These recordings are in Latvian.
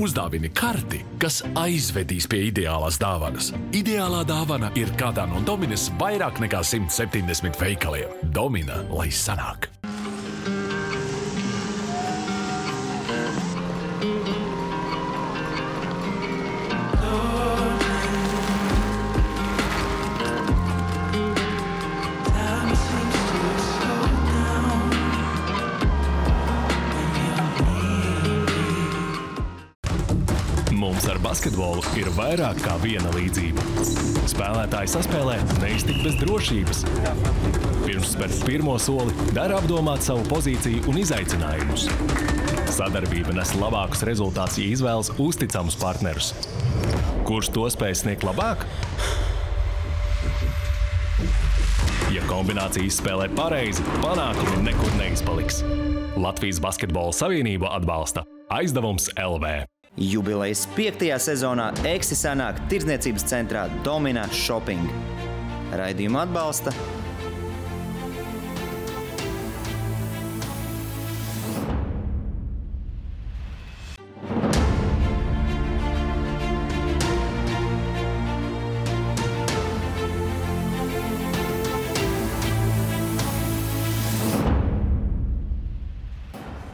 Uzdāvini karti, kas aizvedīs pie ideālās dāvanas. Ideālā dāvana ir kādā no Dominas vairāk nekā 170 veikaliem. Domina, lai sanāk! Mums ar basketbolu ir vairāk kā viena līdzība. Spēlētāji saspēlē neiztikt bez drošības. Pirms spērt pirmo soli, dara apdomāt savu pozīciju un izaicinājumus. Sadarbība nes labākus rezultātus, ja izvēlas uzticamus partnerus. Kurš to spēj sniegt labāk? Ja kombinācijas spēlē pareizi, panākumi nekur neizpaliks. Latvijas Basketbola Savienība atbalsta Aizdevums LV. Jubilejas 5. sezonā Eksi sanāk tirdzniecības centrā Domina Shopping. Raidījumu atbalsta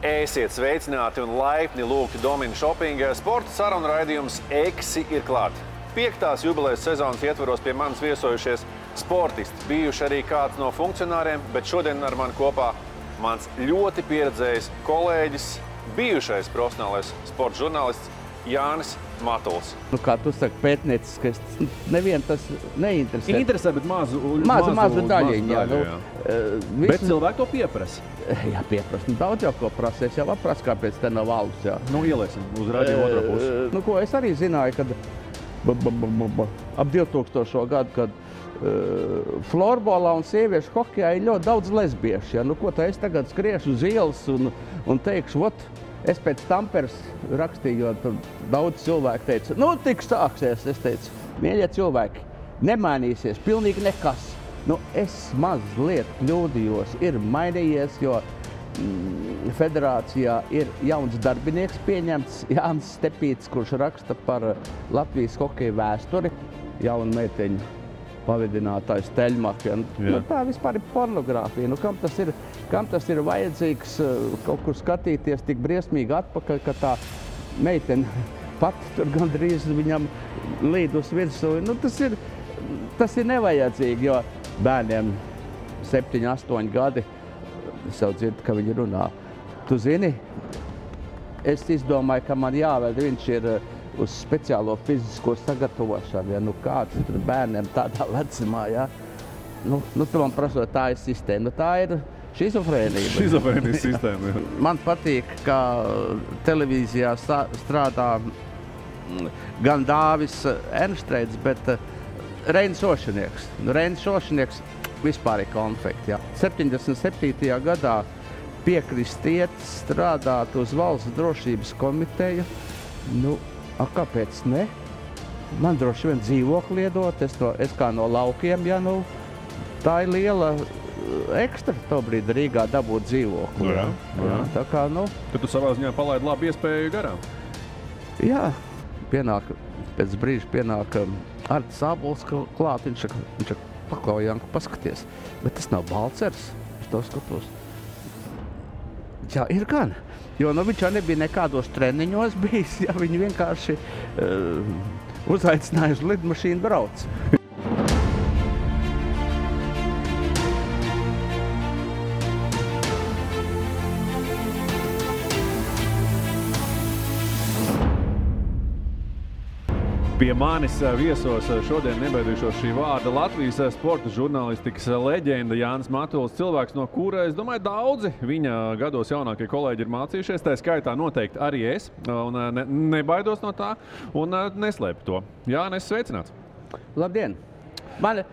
Esiet sveicināti un laipni lūgti Domina Shopping. Sporta sarunu raidījums Eksi ir klāt. 5. jubilejas sezonas ietvaros pie manis viesojušies sportisti. Bijuši arī kāds no funkcionāriem, bet šodien ar mani kopā mans ļoti pieredzējis kolēģis, bijušais profesionālais sporta žurnālists Jānis Matuls. Nu, kā tu saki, pētnieciskais, nevienu tas neinteresē. Interesē, bet mazu daļiņu, jā. Bet cilvēki to pieprasa. Jā, pieprasa. Daudz jau ko prasa. Es jau aprasa, kāpēc te nav alus, jā. Nu, ieliesim uz radio otro pusi. Nu, ko es arī zināju, kad ap 2000. gadu, kad florbolā un sieviešu hokejā ir ļoti daudz lesbiešu. Ja? Nu, ko tā es tagad skriešu uz ielas un teikšu, es pēc Tamperes rakstīju, jo tur daudz cilvēku teica, nu, tik sāksies. Es teicu, mīļie cilvēki, nemainīsies, pilnīgi nekas. Nu, es mazliet kļūdījos, ir mainījies, jo federācijā ir jauns darbinieks pieņemts, Jānis Stepīts, kurš raksta par Latvijas hokeja vēsturi, jauna meiteņa pavedinātājs Teļmaka. Nu, tā vispār ir pornogrāfija. Nu, kam tas ir vajadzīgs kaut kur skatīties tik briesmīgi atpakaļ, ka tā meitene pati tur gandrīz viņam līd uz virsū. Nu, tas ir nevajadzīgi, jo bērniem 7, 8 gadi, es jau dzirdu, ka viņi runā. Tu zini, es izdomāju, ka man jāved, viņš ir uz speciālo fizisko sagatavošanu, ja, nu kāds tur bērniem tādā vecumā, ja. Nu, tu man prasot, tā ir sistēma, nu tā ir šizofrēnija. Šizofrēnijas sistēma, jā. Man patīk, ka televīzijā strādā gan Dāvis Ernštreits, bet Reinis Ošanieks. Nu, Reinis Ošanieks vispār ir konfekti, ja. 77. gadā piekrist iet strādāt uz valsts drošības komiteju, nu, kāpēc ne? Man droši vien dzīvokli iedot, es kā no laukiem, ja, nu, tā ir liela ekstra tobrīd Rīgā dabūt dzīvokli. Jā. Tā kā, nu... Tad tu savā ziņā palaidi labu iespēju garām? Jā, pēc brīža pienāk Artis Ābols klāt, viņš paklau Janku paskaties, bet tas nav Balcers, es to skatos. Jā, ir gan. Jo viņš jau nebija nekādos treniņos bijis, ja viņi vienkārši uzaicināja uz lidmašīnu brauc. Pie manis viesos šodien nebaidīšos šī vārda Latvijas sporta žurnālistikas leģenda Jānis Matuls, cilvēks, no kura, es domāju, daudzi viņa gados jaunākie kolēģi ir mācījušies, tā skaitā noteikti arī es, un nebaidos no tā, un neslēpu to. Jānis, sveicināts! Labdien! Mani,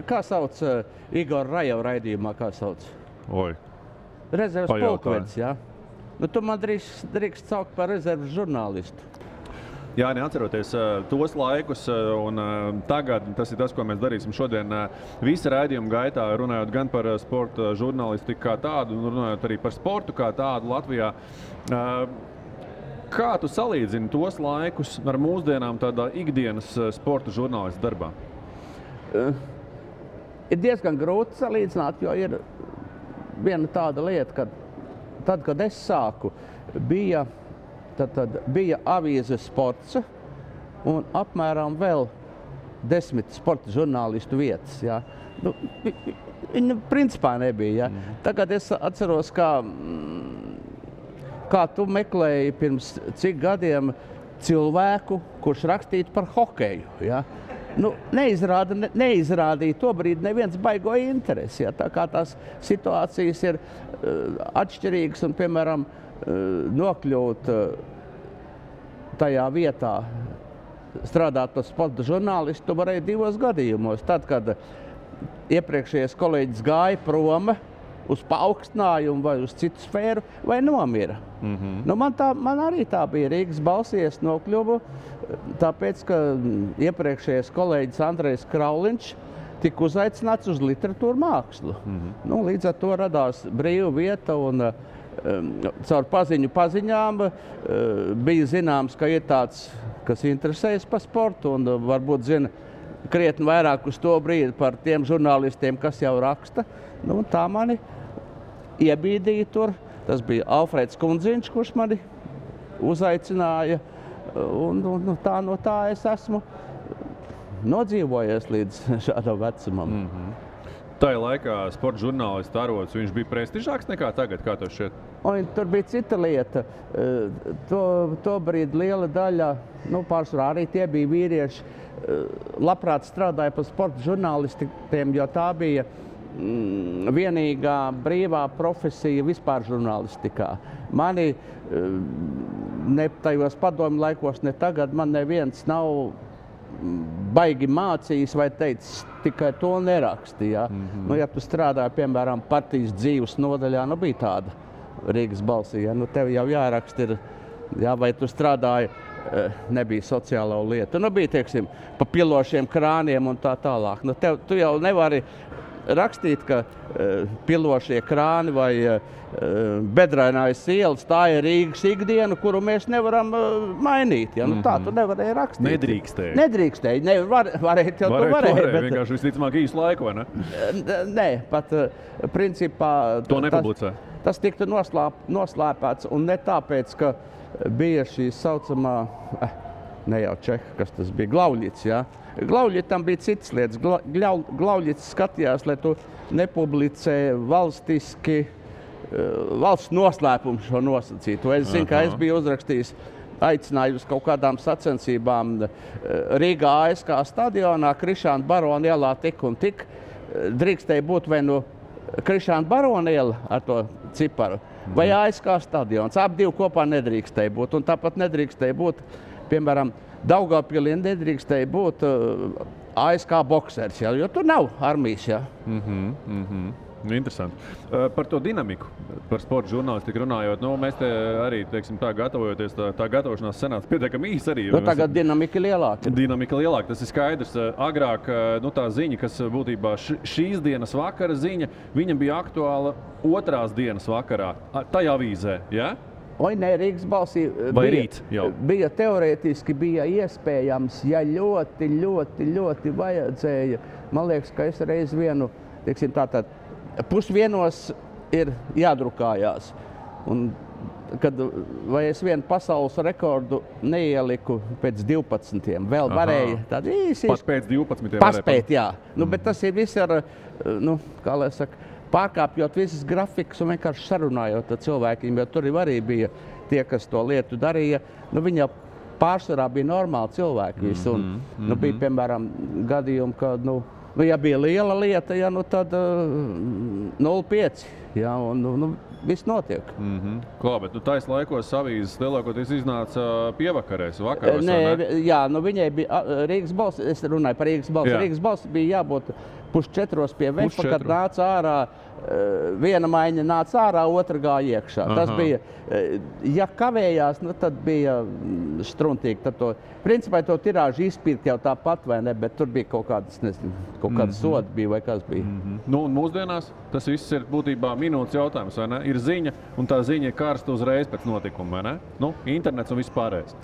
kā sauc Igor Rajeva raidījumā, kā sauc? Oi. Rezerves pulkvedis, jā? Nu, tu man drīkst saukt par rezerves žurnālistu. Jā, neatceroties tos laikus, un tagad tas ir tas, ko mēs darīsim šodien visa raidījuma gaitā, runājot gan par sporta žurnālistiku kā tādu, un runājot arī par sportu kā tādu Latvijā. Kā tu salīdzini tos laikus ar mūsdienām tādā ikdienas sporta žurnālista darbā? Ir diezgan grūti salīdzināt, jo ir viena tāda lieta, ka tad, kad es sāku, bija avīze Sports un apmēram vēl 10 sporta žurnālistu vietas. Ja. Nu, viņa principā nebija. Ja. Tagad es atceros, kā tu meklēji pirms cik gadiem cilvēku, kurš rakstītu par hokeju. Ja. Nu, neizrādīja to brīdi neviens baigo interesi. Ja. Tā kā tās situācijas ir atšķirīgas un, piemēram, nokļūt tajā vietā, strādāt par sporta žurnālistu, tu varēji 2 gadījumos. Tad, kad iepriekšējais kolēģis gāja prom uz paaugstinājumu vai uz citu sfēru, vai nomira. Nu, man arī tā bija Rīgas balsī, es nokļuvu, tāpēc, ka iepriekšējais kolēģis Andrejs Krauliņš tika uzaicināts uz literatūru mākslu. Nu, līdz ar to radās brīva vieta un caur paziņām bija zināms, ka ir tāds, kas interesējas par sportu un varbūt zina krietni vairāk uz to brīdi par tiem žurnālistiem, kas jau raksta. Nu, tā mani iebīdīja tur. Tas bija Alfrēds Kundziņš, kurš mani uzaicināja. Un no tā es esmu nodzīvojies līdz šādam vecumam. Tajā laikā sporta žurnālista arods, viņš bija prestižāks nekā tagad, kā tev šķiet? Un tur bija cita lieta. To brīdi liela daļa, pārsvarā arī tie bija vīrieši, labprāt strādāja par sporta žurnālistiem, jo tā bija vienīgā brīvā profesija vispār žurnālistikā. Mani ne tajos padomju laikos, ne tagad, man neviens nav baigi mācījis vai teicis, tikai to nerakstīja. Ja tu strādāji, piemēram, partijas dzīves nodaļā, bija tāda Rīgas balsī, tev jau jāraksta ir, vai tu strādāji, nebija sociālo lietu. Bija, teiksim, pa pilošiem krāniem un tā tālāk. Tu jau nevari rakstīt, ka pilošie krāni vai bedrainājs ielas, tā ir Rīgas ikdiena, kuru mēs nevaram mainīt. Ja? Tā tu nevarēji rakstīt. Nedrīkstēji. Nedrīkstēji. Varēt jau tu varēji. Bet... Vienkārši visticamāk īsu laiku, vai ne? Nē, pat principā... To nepublicē. Tas tiktu noslēpēts un ne tāpēc, ka bija šī saucamā, ne jau Čeha, kas tas bija, Glauļits, ja? Glauļitam bija citas lietas. Glauļits skatījās, lai tu nepublicē valstiski, valsts noslēpumu šo nosacītu. Es zinu, ka es biju uzrakstījis aicināju uz kaut kādām sacensībām Rīgā ASK stadionā, Krišāna Barona ielā tik un tik. Drīkstēja būt vai nu Krišāna Barona iela ar to ciparu, vai ASK stadions. Ap divi kopā nedrīkstēja būt. Un tāpat nedrīkstēja būt, piemēram, Daugavpilī nedrīkstēja būt ASK boksers, ja, jo tur nav armijas. Ja. Interesanti. Par to dinamiku, par sporta žurnālistiku runājot, mēs te arī, teiksim, tā gatavojoties, tā gatavošanās senāca pietiekami īsi arī. Tagad dinamika lielāka. Dinamika lielāka, tas ir skaidrs. Agrāk, tā ziņa, kas būtībā šīs dienas vakara ziņa, viņa bija aktuāla otrās dienas vakarā, tajā avīzē, ja? Nē, Rīgas balsī bija teorētiski bija iespējams, ja ļoti vajadzēja. Man liekas, ka es reiz vienu, teiksim, tātad pusvienos ir jādrukājās. Un, vai es vienu pasaules rekordu neieliku pēc 12. Vēl varēja tādu īsi. Pat pēc 12. Paspēt, jā. Bet tas ir viss ar, kā lai saka, pārkāpjot visas grafikas un vienkārši sarunājot ar cilvēkiem, jo tur arī bija tie, kas to lietu darīja. Viņi jau pārsvarā bija normāli cilvēki visi. Bija, piemēram, gadījumi, ka, ja bija liela lieta, ja, tad 0,5. Ja, viss notiek. Klā, bet tais laikos avīzes lielākoties iznāca pievakarēs, vakaros, ne? Jā, viņai bija Rīgas balss, es runāju par Rīgas balss. Rīgas balss bija jābūt 3:30 pie vefa, kad nāca ārā viena maiņa nāca ārā, otra gāja iekšā. Tas bija, ja kavējās, nu, tad bija struntīgi. Tad to, principā to tirāžu izpirkt jau tāpat, vai ne, bet tur bija kaut kādas, nezinu, kaut kādas sodi bija vai kas bija. Nu, un mūsdienās tas viss ir būtībā minūtes jautājums, vai ne? Ir ziņa, un tā ziņa ir karsta uzreiz pēc notikuma, vai ne? Nu, internets un viss pārējais.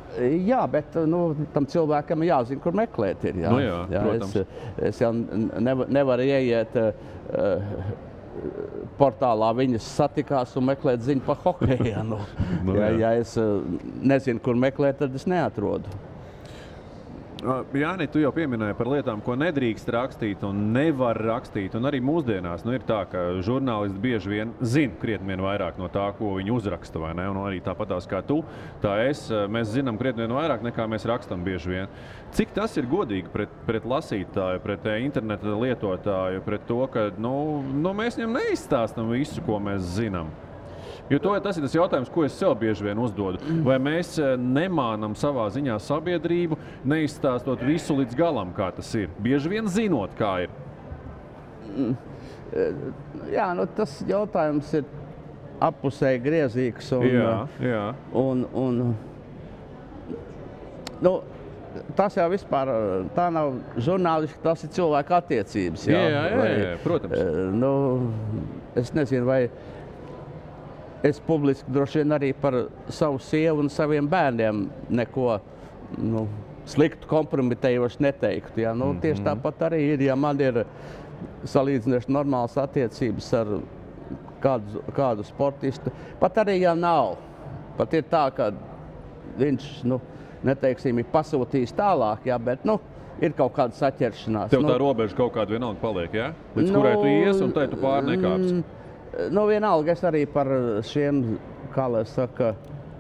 Jā, bet tam cilvēkam jāzina, kur meklēt ir. Jā. Nu jā, protams. Es jau nevaru ieiet portālā viņas satikās un meklēt ziņu par hokeju. Ja es nezinu, kur meklēt, tad es neatrodu. Jāni, tu jau pieminēji par lietām, ko nedrīkst rakstīt un nevar rakstīt. Un arī mūsdienās ir tā, ka žurnālisti bieži vien zina krietni vien vairāk no tā, ko viņi uzraksta, vai ne? Un arī tāpatās kā tu, mēs zinām krietni vien vairāk nekā mēs rakstam bieži vien. Cik tas ir godīgi pret lasītāju, pret interneta lietotāju, pret to, ka mēs viņam neizstāstam visu, ko mēs zinām? Jo tas ir tas jautājums, ko es sev bieži vien uzdodu. Vai mēs nemānam savā ziņā sabiedrību, neizstāstot visu līdz galam, kā tas ir? Bieži vien zinot, kā ir. Jā, tas jautājums ir appusēji griezīgs. Tas jau vispār, tā nav žurnālisti, tas ir cilvēku attiecības. Jā, protams. Es nezinu, vai es publiski droši vien arī par savu sievu un saviem bērniem neko sliktu kompromitējoši neteiktu. Ja? Tieši tāpat arī ir, ja man ir salīdzinoši normālas attiecības ar kādu sportistu. Pat arī, ja nav. Pat ir tā, ka viņš, neteiksim, ir pasūtījis tālāk, ja? Bet, ir kaut kāda saķeršanās. Tev tā robeža kaut kāda vienalga paliek, ja? Līdz kurai tu ies un tai tu pārnekāpsi. Vienalga es arī par šiem, kā lai saka,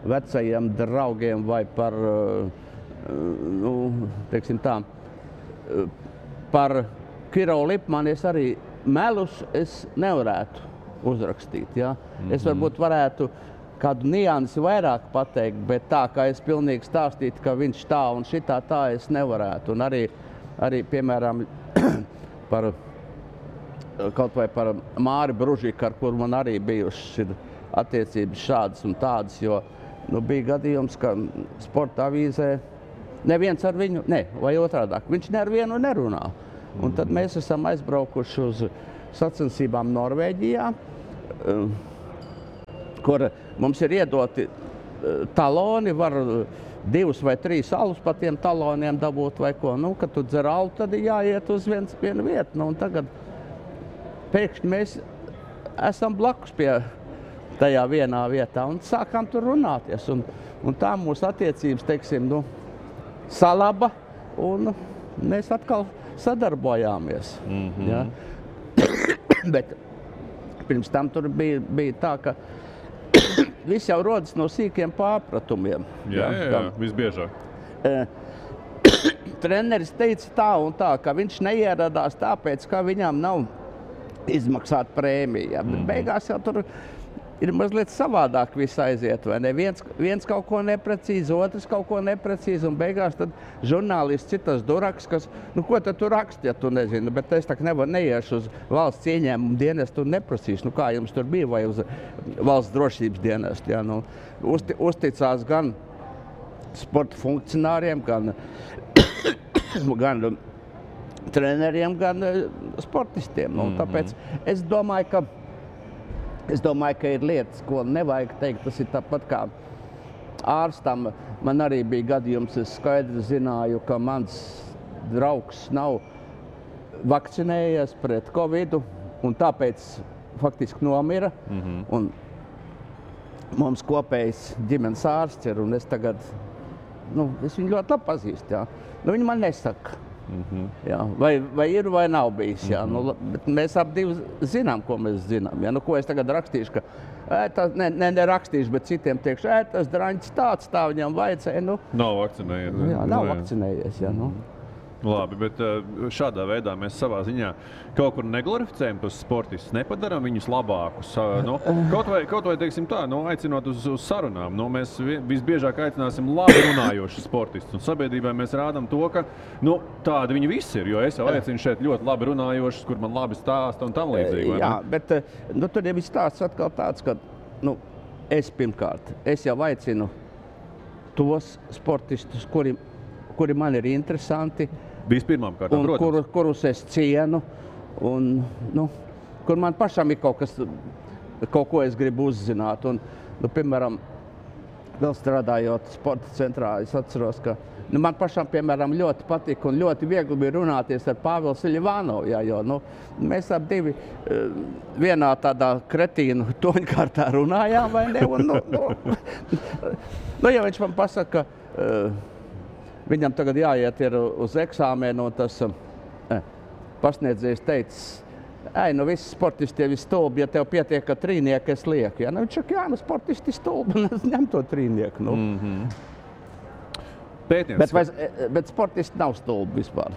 vecajiem draugiem vai par, teiksim tā, par Kirovu Lipmanu es arī melus es nevarētu uzrakstīt, ja? Es varbūt varētu kādu niansi vairāk pateikt, bet tā, kā es pilnīgi stāstītu, ka viņš tā un šitā tā es nevarētu. Un arī piemēram, kaut vai par Māri Bružiku, ar kuru man arī bijušas attiecības šādas un tādas, jo bija gadījums, ka sporta avīzē neviens ar viņu, vai otrādāk, viņš ne ar vienu nerunā. Un tad mēs esam aizbraukuši uz sacensībām Norvēģijā, kur mums ir iedoti taloni, var 2 vai 3 alus pa tiem taloniem dabūt vai ko. Kad tu dzer alu, tad ir jāiet uz vienu vietu. Un tagad pēkšņi mēs esam blakus pie tajā vienā vietā un sākām tur runāties. Un tā mūsu attiecības, teiksim, salaba un mēs atkal sadarbojāmies. Ja? Bet pirms tam tur bija tā, ka viss jau rodas no sīkiem pārpratumiem. Jā, visbiežāk. Treneris teica tā un tā, ka viņš neieradās tāpēc, ka viņam nav izmaksāt prēmiju. Ja? Bet beigās jau tur ir mazliet savādāk viss aiziet, vai ne? Viens kaut ko neprecīzi, otrs kaut ko neprecīzi, un beigās tad žurnālists citas duraks, kas, ko tad tu raksti, ja tu nezini, bet es tā neiešu uz valsts ieņēmumu dienestu un neprasīšu, kā jums tur bija, vai uz valsts drošības dienestu. Ja? Uzticās gan sporta funkcionāriem, gan treneriem, gan sportistiem. Tāpēc es domāju, ka ir lietas, ko nevajag teikt. Tas ir tāpat kā ārstam. Man arī bija gadījums, es skaidri zināju, ka mans draugs nav vakcinējies pret Covidu un tāpēc faktiski nomira. Un mums kopējs ģimenes ārsts ir, un es tagad, es viņu ļoti labi pazīstu. Ja? Viņi man nesaka. Jā, vai ir vai nav bijis. Jā. Bet mēs ap divi zinām, ko mēs zinām. Ja? Ko es tagad rakstīšu, ka nerakstīšu, bet citiem teikšu, tas draņķis tā viņam vajadzēja. Nav vakcinējies. Jā, nav vakcinējies. Jā, Labi, bet šādā veidā mēs savā ziņā kaut kur neglorificējam tos sportistus, nepadarām viņus labākus. Kaut vai teiksim tā, aicinot uz sarunām. Mēs visbiežāk aicināsim labi runājošus sportistus. Un sabiedrībai mēs rādām to, ka tādi viņi visi ir. Jo es jau aicinu šeit ļoti labi runājošus, kur man labi stāsta un tam līdzīgi. Jā, bet tur jau ir stāsts atkal tāds, ka es jau aicinu tos sportistus, kuri man ir interesanti. Vispirmām kārtām, protams. Kurus es cienu, un kur man pašam ir kaut ko es gribu uzzināt. Un, piemēram, vēl strādājot sporta centrā, es atceros, ka man pašam, piemēram, ļoti patika un ļoti viegli bija runāties ar Pāvilu Siļivānovu, jo mēs ap divi vienā tādā kretīnu toņkārtā runājām, vai ne? Un, ja viņš man pasaka, ka viņam tagad jāiet ir uz eksāmenu, un tas pasniedzējs teicis, visi sportisti jau ir stulbi, ja tev pietiek, ka trīnieku es lieku. Viņš saka, sportisti stulbi, un es ņem to trīnieku. Bet sportisti nav stulbi vispār.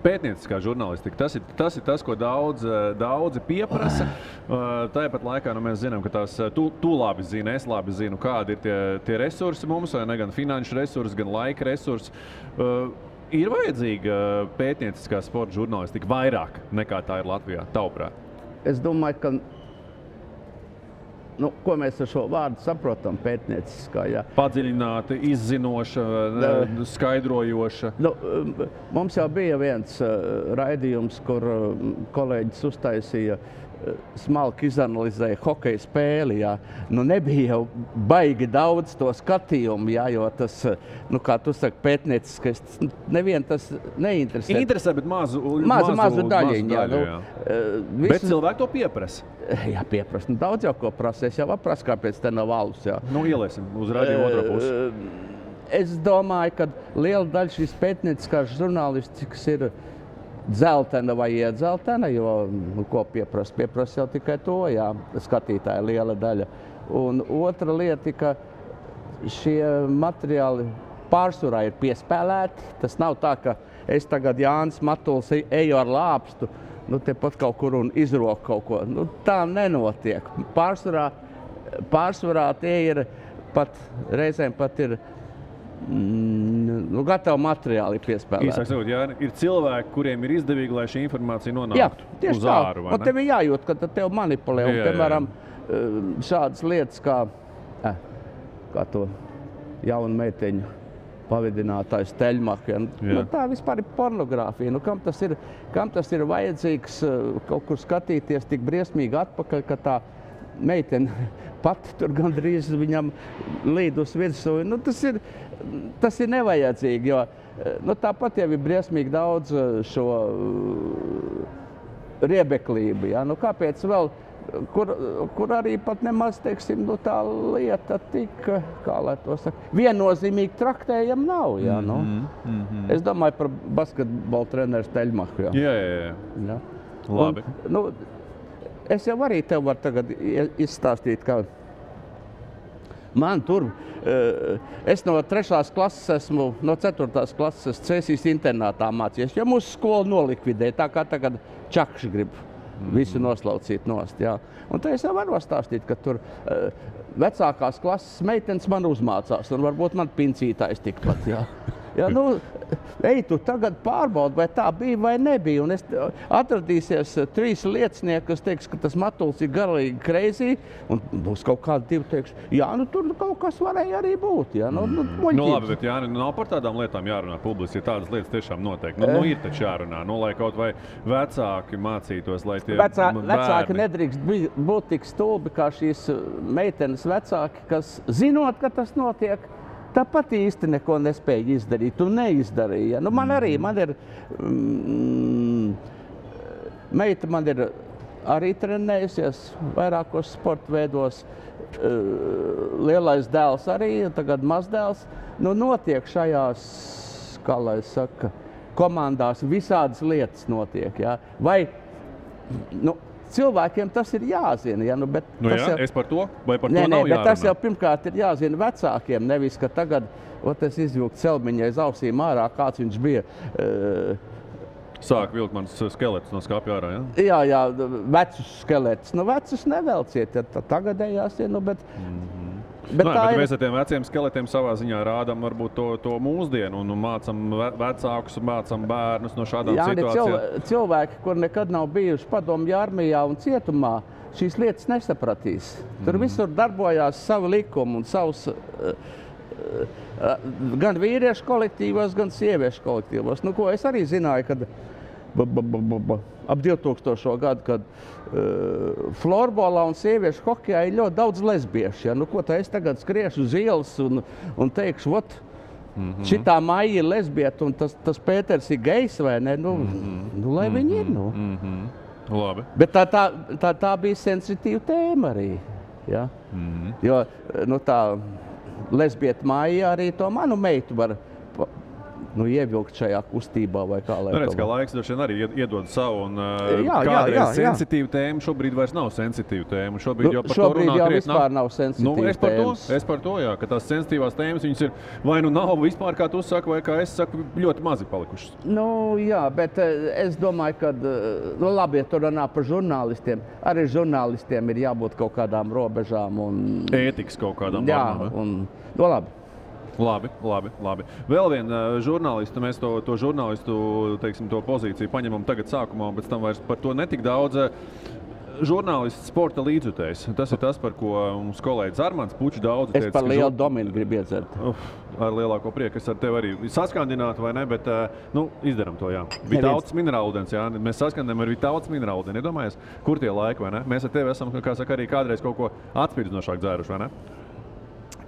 Pētnieciskā žurnālistika, tas ir tas, ko daudzi pieprasa. Tāpat laikā mēs zinām, ka tu labi zini, es labi zinu, kādi ir tie resursi mums, vai ne, gan finanšu resursi, gan laika resursi. Ir vajadzīga pētnieciskā sporta žurnālistika vairāk nekā tā ir Latvijā, tavuprāt? Es domāju, ka ko mēs ar šo vārdu saprotam pētnieciskā, jā. Padziļināta, izzinoša, skaidrojoša. Mums jau bija viens raidījums, kur kolēģis uztaisīja smalki izanalizēja hokeja spēli, jā. Nebija jau baigi daudz to skatījumu, jā, jo tas, kā tu saki, pētnieciskais, nevien tas neinteresē. Interesē, bet mazu daļiņu, jā. Bet cilvēki to pieprasa. Jā, pieprasa. Daudz jau ko prasa. Es jau aprasu, kāpēc te nav alus, jā. Ieliesim uz radio otro pusi. Es domāju, ka liela daļa šīs pētnieciskās žurnālistikas ir dzeltena vai iedzeltena, jo, ko pieprasa? Pieprasa jau tikai to, jā, skatītāja liela daļa. Un otra lieta, ka šie materiāli pārsvarā ir piespēlēti. Tas nav tā, ka es tagad Jānis Matuls eju ar lāpstu, tepat kaut kur un izroku kaut ko. Tā nenotiek. Pārsvarā tie ir reizēm pat ir gatavi materiāli piespēlēti. Īsāk sakot, jā, ir cilvēki, kuriem ir izdevīgi, lai šī informācija nonāktu uz āru, vai ne? Tev ir jājūt, ka tev manipulē. Un, piemēram, šādas lietas kā to jaunu meiteņu pavidinātājs Teļmaka. Tā vispār ir pornogrāfija. Kam tas ir vajadzīgs kaut kur skatīties tik briesmīgi atpakaļ, ka tā meitene pati tur gandrīz viņam līd uz virsū. Tas ir nevajadzīgi, jo tāpat jau ir briesmīgi daudz šo riebeklību. Ja? Kāpēc vēl, kur arī pat nemaz, teiksim, tā lieta tik, kā lai to saka, viennozīmīgi traktējama nav. Ja? Es domāju par basketbola treneru Teļmaku. Jā. Labi. Es jau arī tev varu tagad izstāstīt, ka man tur, es no 3. klases esmu, no 4. klases Cēsīs internātā mācījies, jo mūsu skolu nolikvidēja, tā kā tagad Čakši grib visu noslaucīt nost. Jā. Un tā es jau varu stāstīt, ka tur vecākās klases meitenes man uzmācās, un varbūt man pincītājs tikpat. Jā. Ja, ej, tu tagad pārbaudi, vai tā bija vai nebija. Un atradīsies 3 liecinieki, kas teiks, ka tas Matuls ir garīgi crazy, un būs kaut kādi 2 teiks, jā, tur kaut kas varēja arī būt. Jā, labi, bet Jāni, nav par tādām lietām jārunā publiski, ja tādas lietas tiešām notiek. Ir taču jārunā, lai kaut vai vecāki mācītos, lai tie Vecāki nedrīkst būt tik stulbi, kā šīs meitenes vecāki, kas zinot, ka tas notiek, tāpat īsti neko nespēja izdarīt un neizdarīja. Man ir meita ir arī trenējusies vairākos sporta veidos. Lielais dēls arī, tagad mazdēls. Notiek šajās, kā lai saka, komandās visādas lietas notiek. Ja? Vai, cilvēkiem tas ir jāzina. Ja? Bet es par to, vai par to nav jārunā? Bet tas jau pirmkārt ir jāzina vecākiem, nevis, ka tagad es izvilku celmiņai aiz ausīm ārā, kāds viņš bija. Sāk vilkt mans skelets no skapja ārā, ja? Jā, vecus skeletus. Vecus nevelciet, ja tagadējās, bet... Bet mēs ar tiem veciem skeletiem savā ziņā rādām varbūt to mūsdienu un mācam vecākus, mācam bērnus no šādām situācijām. Cilvēki, kur nekad nav bijuši padomju armijā un cietumā, šīs lietas nesapratīs. Tur visur darbojās savi likumi un savs gan vīriešu kolektīvos, gan sieviešu kolektīvos. Ko es arī zināju, kad ap 2000. gadu, kad florbolā un sieviešu hokejā ir ļoti daudz lesbiešu. Ja? Ko tā es tagad skriešu uz ielas un teikšu, šitā Maija ir lesbieta un tas Pēters ir gejs vai ne? Lai viņi ir, Labi. Bet tā bija sensitīva tēma arī. Ja? Jo tā lesbieta Maija arī to manu meitu var ievilkt šajā kustībā vai kā lai redz, ka laiks droši vien arī iedod savu un kādreiz sensitīva tēma šobrīd vairs nav sensitīva tēma. Šobrīd jau par to runā krietni. Vispār nav sensitīva tēmas. Es par to, jā, ka tās sensitīvās tēmas viņas ir vai nav vispār, kā tu saki, vai kā es saku, ļoti mazi palikušas. Jā, bet es domāju, ka, labi, ja tu runā par žurnālistiem, arī žurnālistiem ir jābūt kaut kādām robežām un... Ētikas kaut kādām normām, labi. Labi. Vēl viena žurnālista, mēs to žurnālistu, teiksim, to pozīciju paņemam tagad sākumā, un pēc tam vairs par to netik daudz. Žurnālists sporta līdzjutējs. Tas ir tas, par ko mums kolēģis Armands Pučs daudz teica. Es par lielu Dominu gribu iedzert. Ar lielāko prieku. Es ar tevi arī saskandinātu, vai ne, bet izdaram to, jā. Vitautas minerālūdens, jā. Mēs saskandinām ar Vitautas minerālūdeni. Iedomājies, kur tie laiki, vai ne? Mēs ar tevi esam, kā saka, arī kādreiz kaut ko atspīdzinošāk dzēruši, vai ne?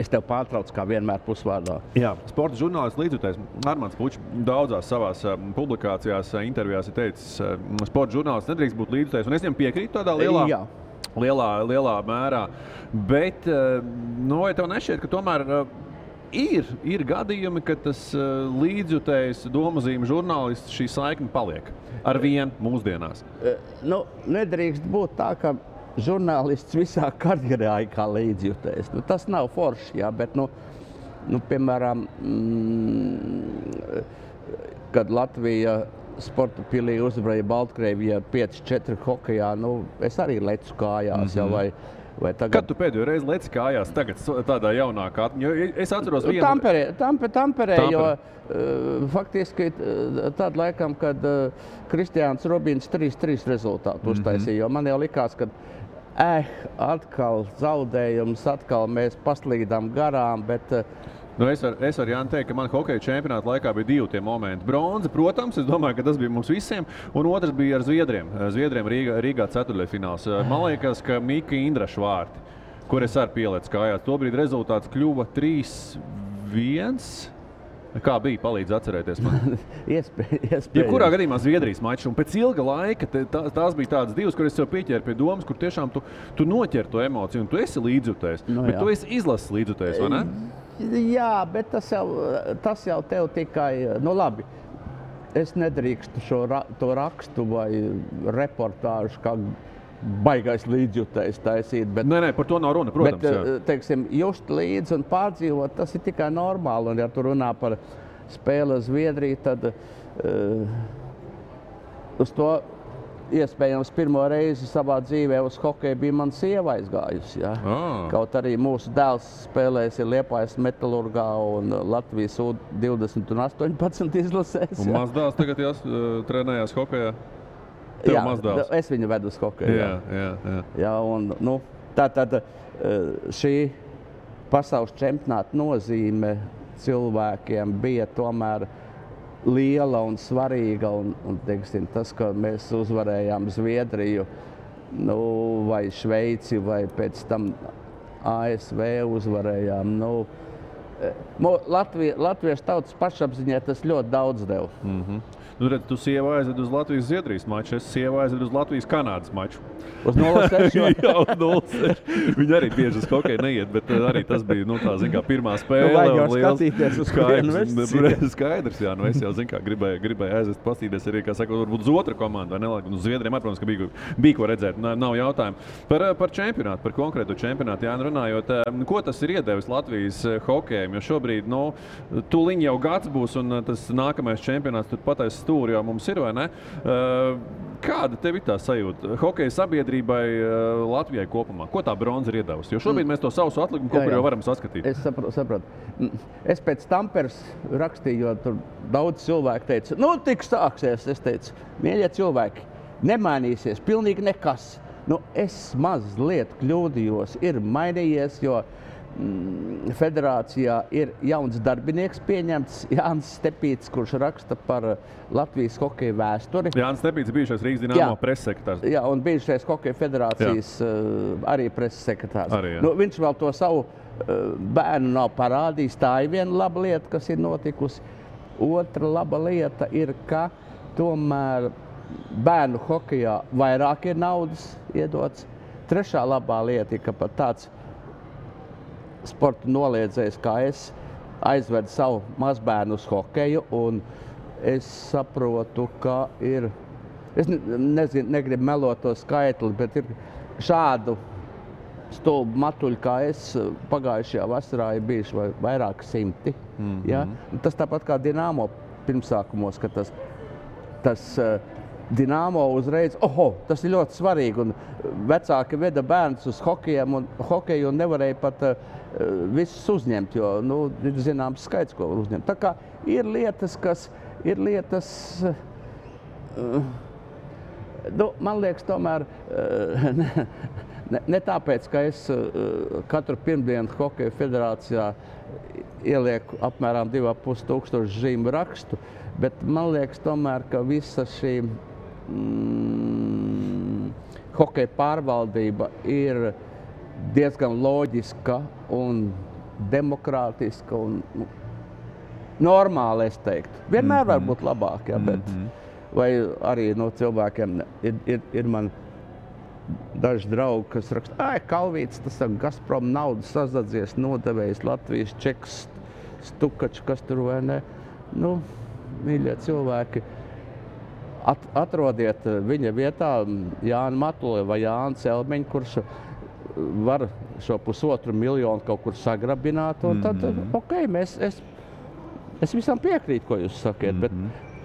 Es tev pārtraucu, kā vienmēr pusvārdā. Jā, sporta žurnālists līdzjutējs Armands Pučs daudzās savās publikācijās, intervijās ir teicis, sporta žurnālists nedrīkst būt līdzjutējs, un es viņam piekrītu tādā lielā mērā. Bet, vai tev nešķiet, ka tomēr ir gadījumi, ka tas līdzjutējs domazīme žurnālists šī saikne paliek ar vienu mūsdienās? Nedrīkst būt tā, ka žurnālists visā karjerā ir kā līdzjutējs. Tas nav forši, jā, bet, piemēram, kad Latvija sporta pilī uzvarēja Baltkrievijā 5-4 hokejā, es arī lecu kājās, vai tagad... Kad tu pēdējo reizi leci kājās tagad tādā jaunākā? Es atceros vienu... Tamperē, jo faktiski tad laikam, kad Kristiāns Robins 3-3 rezultātu uztaisīja, jo man jau likās, ka atkal zaudējums, atkal mēs paslīdām garām, bet... Es varu Jāni teikt, ka man hokeja čempionāta laikā bija divi tie momenti. Bronza, protams, es domāju, ka tas bija mums visiem, un otrs bija ar Zviedriem. Zviedriem Rīgā ceturtdaļfināls. Man liekas, ka Mika Indraša vārti, kur es arī pieliecu kājās. Tobrīd rezultāts kļuva 3-1. Kā bija? Palīdz atcerēties man. Iespējams. Ja kurā gadījumā Zviedrijas mačs, un pēc ilga laika tās bija tādas divas, kur es sev pieķēru pie domas, kur tiešām tu noķer to emociju, un tu esi līdzjutējs, bet tu esi izlases līdzjutējs, vai ne? Jā, bet tas jau tev tikai, labi, es nedrīkstu to rakstu vai reportāžu kā baigais līdzjutējs taisīt. Bet, nē, par to nav runa, protams. Bet, teiksim, just līdzi un pārdzīvot, tas ir tikai normāli. Un ja tu runā par spēli Zviedriju, tad uz to iespējams pirmo reizi savā dzīvē uz hokeju bija mana sieva aizgājusi. Ja? Kaut arī mūsu dēls spēlēs ir Liepājas Metalurgā un Latvijas U20 un 18 izlasēs. Un mazdēls tagad trenējās hokejā? Jā, es viņu vedu uz hokeju. Jā, un, tātad šī pasaules čempionāta nozīme cilvēkiem bija tomēr liela un svarīga. Un teiksim, tas, ka mēs uzvarējām Zviedriju vai Šveici vai pēc tam ASV uzvarējām. Latviešu tautas pašapziņai tas ļoti daudz deva. Nu, redz, tu sievu aizved uz Latvijas-Zviedrijas maču, es sievu aizved uz Latvijas-Kanādas maču. Uz 0-6? Jā, uz 0-6. Viņi arī bieži uz hokeju neiet, bet arī tas bija, tā, zin kā, pirmā spēle. Vajag jau skatīties uz Skaidrs, jā, es jau, zin kā, gribēju aizvest pastīties arī, kā saka, varbūt uz otru komandu, vai ne? Uz Zviedriem, protams, ka bija ko redzēt, nav jautājumu. Par čempionātu, par konkrētu čempionātu, jā, runājot, ko tas ir iedevis Latvijas hokejam, jo šobrīd, tūliņ jau gads būs un tas nākamais čempionāts tur patais stūri jau mums ir, vai ne? Kāda tev ir tā sajūta hokeja sabiedrībai Latvijai kopumā? Ko tā bronza ir iedavusi? Jo šobrīd mēs to sausu atlikumu kaut kur jau varam saskatīt. Es saprotu. Es pēc Tamperes rakstīju, jo tur daudz cilvēku teica, tik sāksies. Es teicu, mīļie cilvēki, nemainīsies pilnīgi nekas. Es mazliet kļūdījos, ir mainījies, jo federācijā ir jauns darbinieks pieņemts, Jānis Stepīts, kurš raksta par Latvijas hokeja vēsturi. Jānis Stepīts ir bijušais Rīgas Dinamo pressekretārs. Jā, un bijušais hokeja federācijas arī pressekretārs. Arī, viņš vēl to savu bērnu nav parādījis. Tā ir viena laba lieta, kas ir notikusi. Otra laba lieta ir, ka tomēr bērnu hokejā vairāk ir naudas iedots. Trešā labā lieta ir, ka pat tāds sporta noliedzējs, kā es, aizvedu savu mazbērnu uz hokeju, un es saprotu, ka ir, es negribu melot to skaitli, bet ir šādu stulbu matuļu, kā es, pagājušajā vasarā ir bijuši vairāk simti. Ja? Tas tāpat kā Dinamo pirmsākumos, ka tas Dinamo uzreiz, tas ir ļoti svarīgi, un vecāki veda bērnus uz hokeju un nevarēja pat visus uzņemt, jo, ir zināms skaits, ko var uzņemt. Tā kā ir lietas, man liekas, tomēr, ne tāpēc, ka es katru pirmdienu hokeja federācijā ielieku apmēram 2500 zīmu rakstu, bet man liekas tomēr, ka visa šī hokeja pārvaldība ir diezgan loģiska un demokrātiska un normāli, es teiktu. Vienmēr var būt labāk, bet vai arī no cilvēkiem ir man daži draugi, kas raksta, Kalvīts, tas ir Gazprom naudu sazadzies, nodevējis Latvijas čeks, Stukačs, kas tur vai ne. Mīļie cilvēki, atrodiet viņa vietā Jānu Matuli vai Jānu Celmeņu, kurš var šo 1,5 miljonu kaut kur sagrabināt, un tad, es visam piekrītu, ko jūs sakiet, bet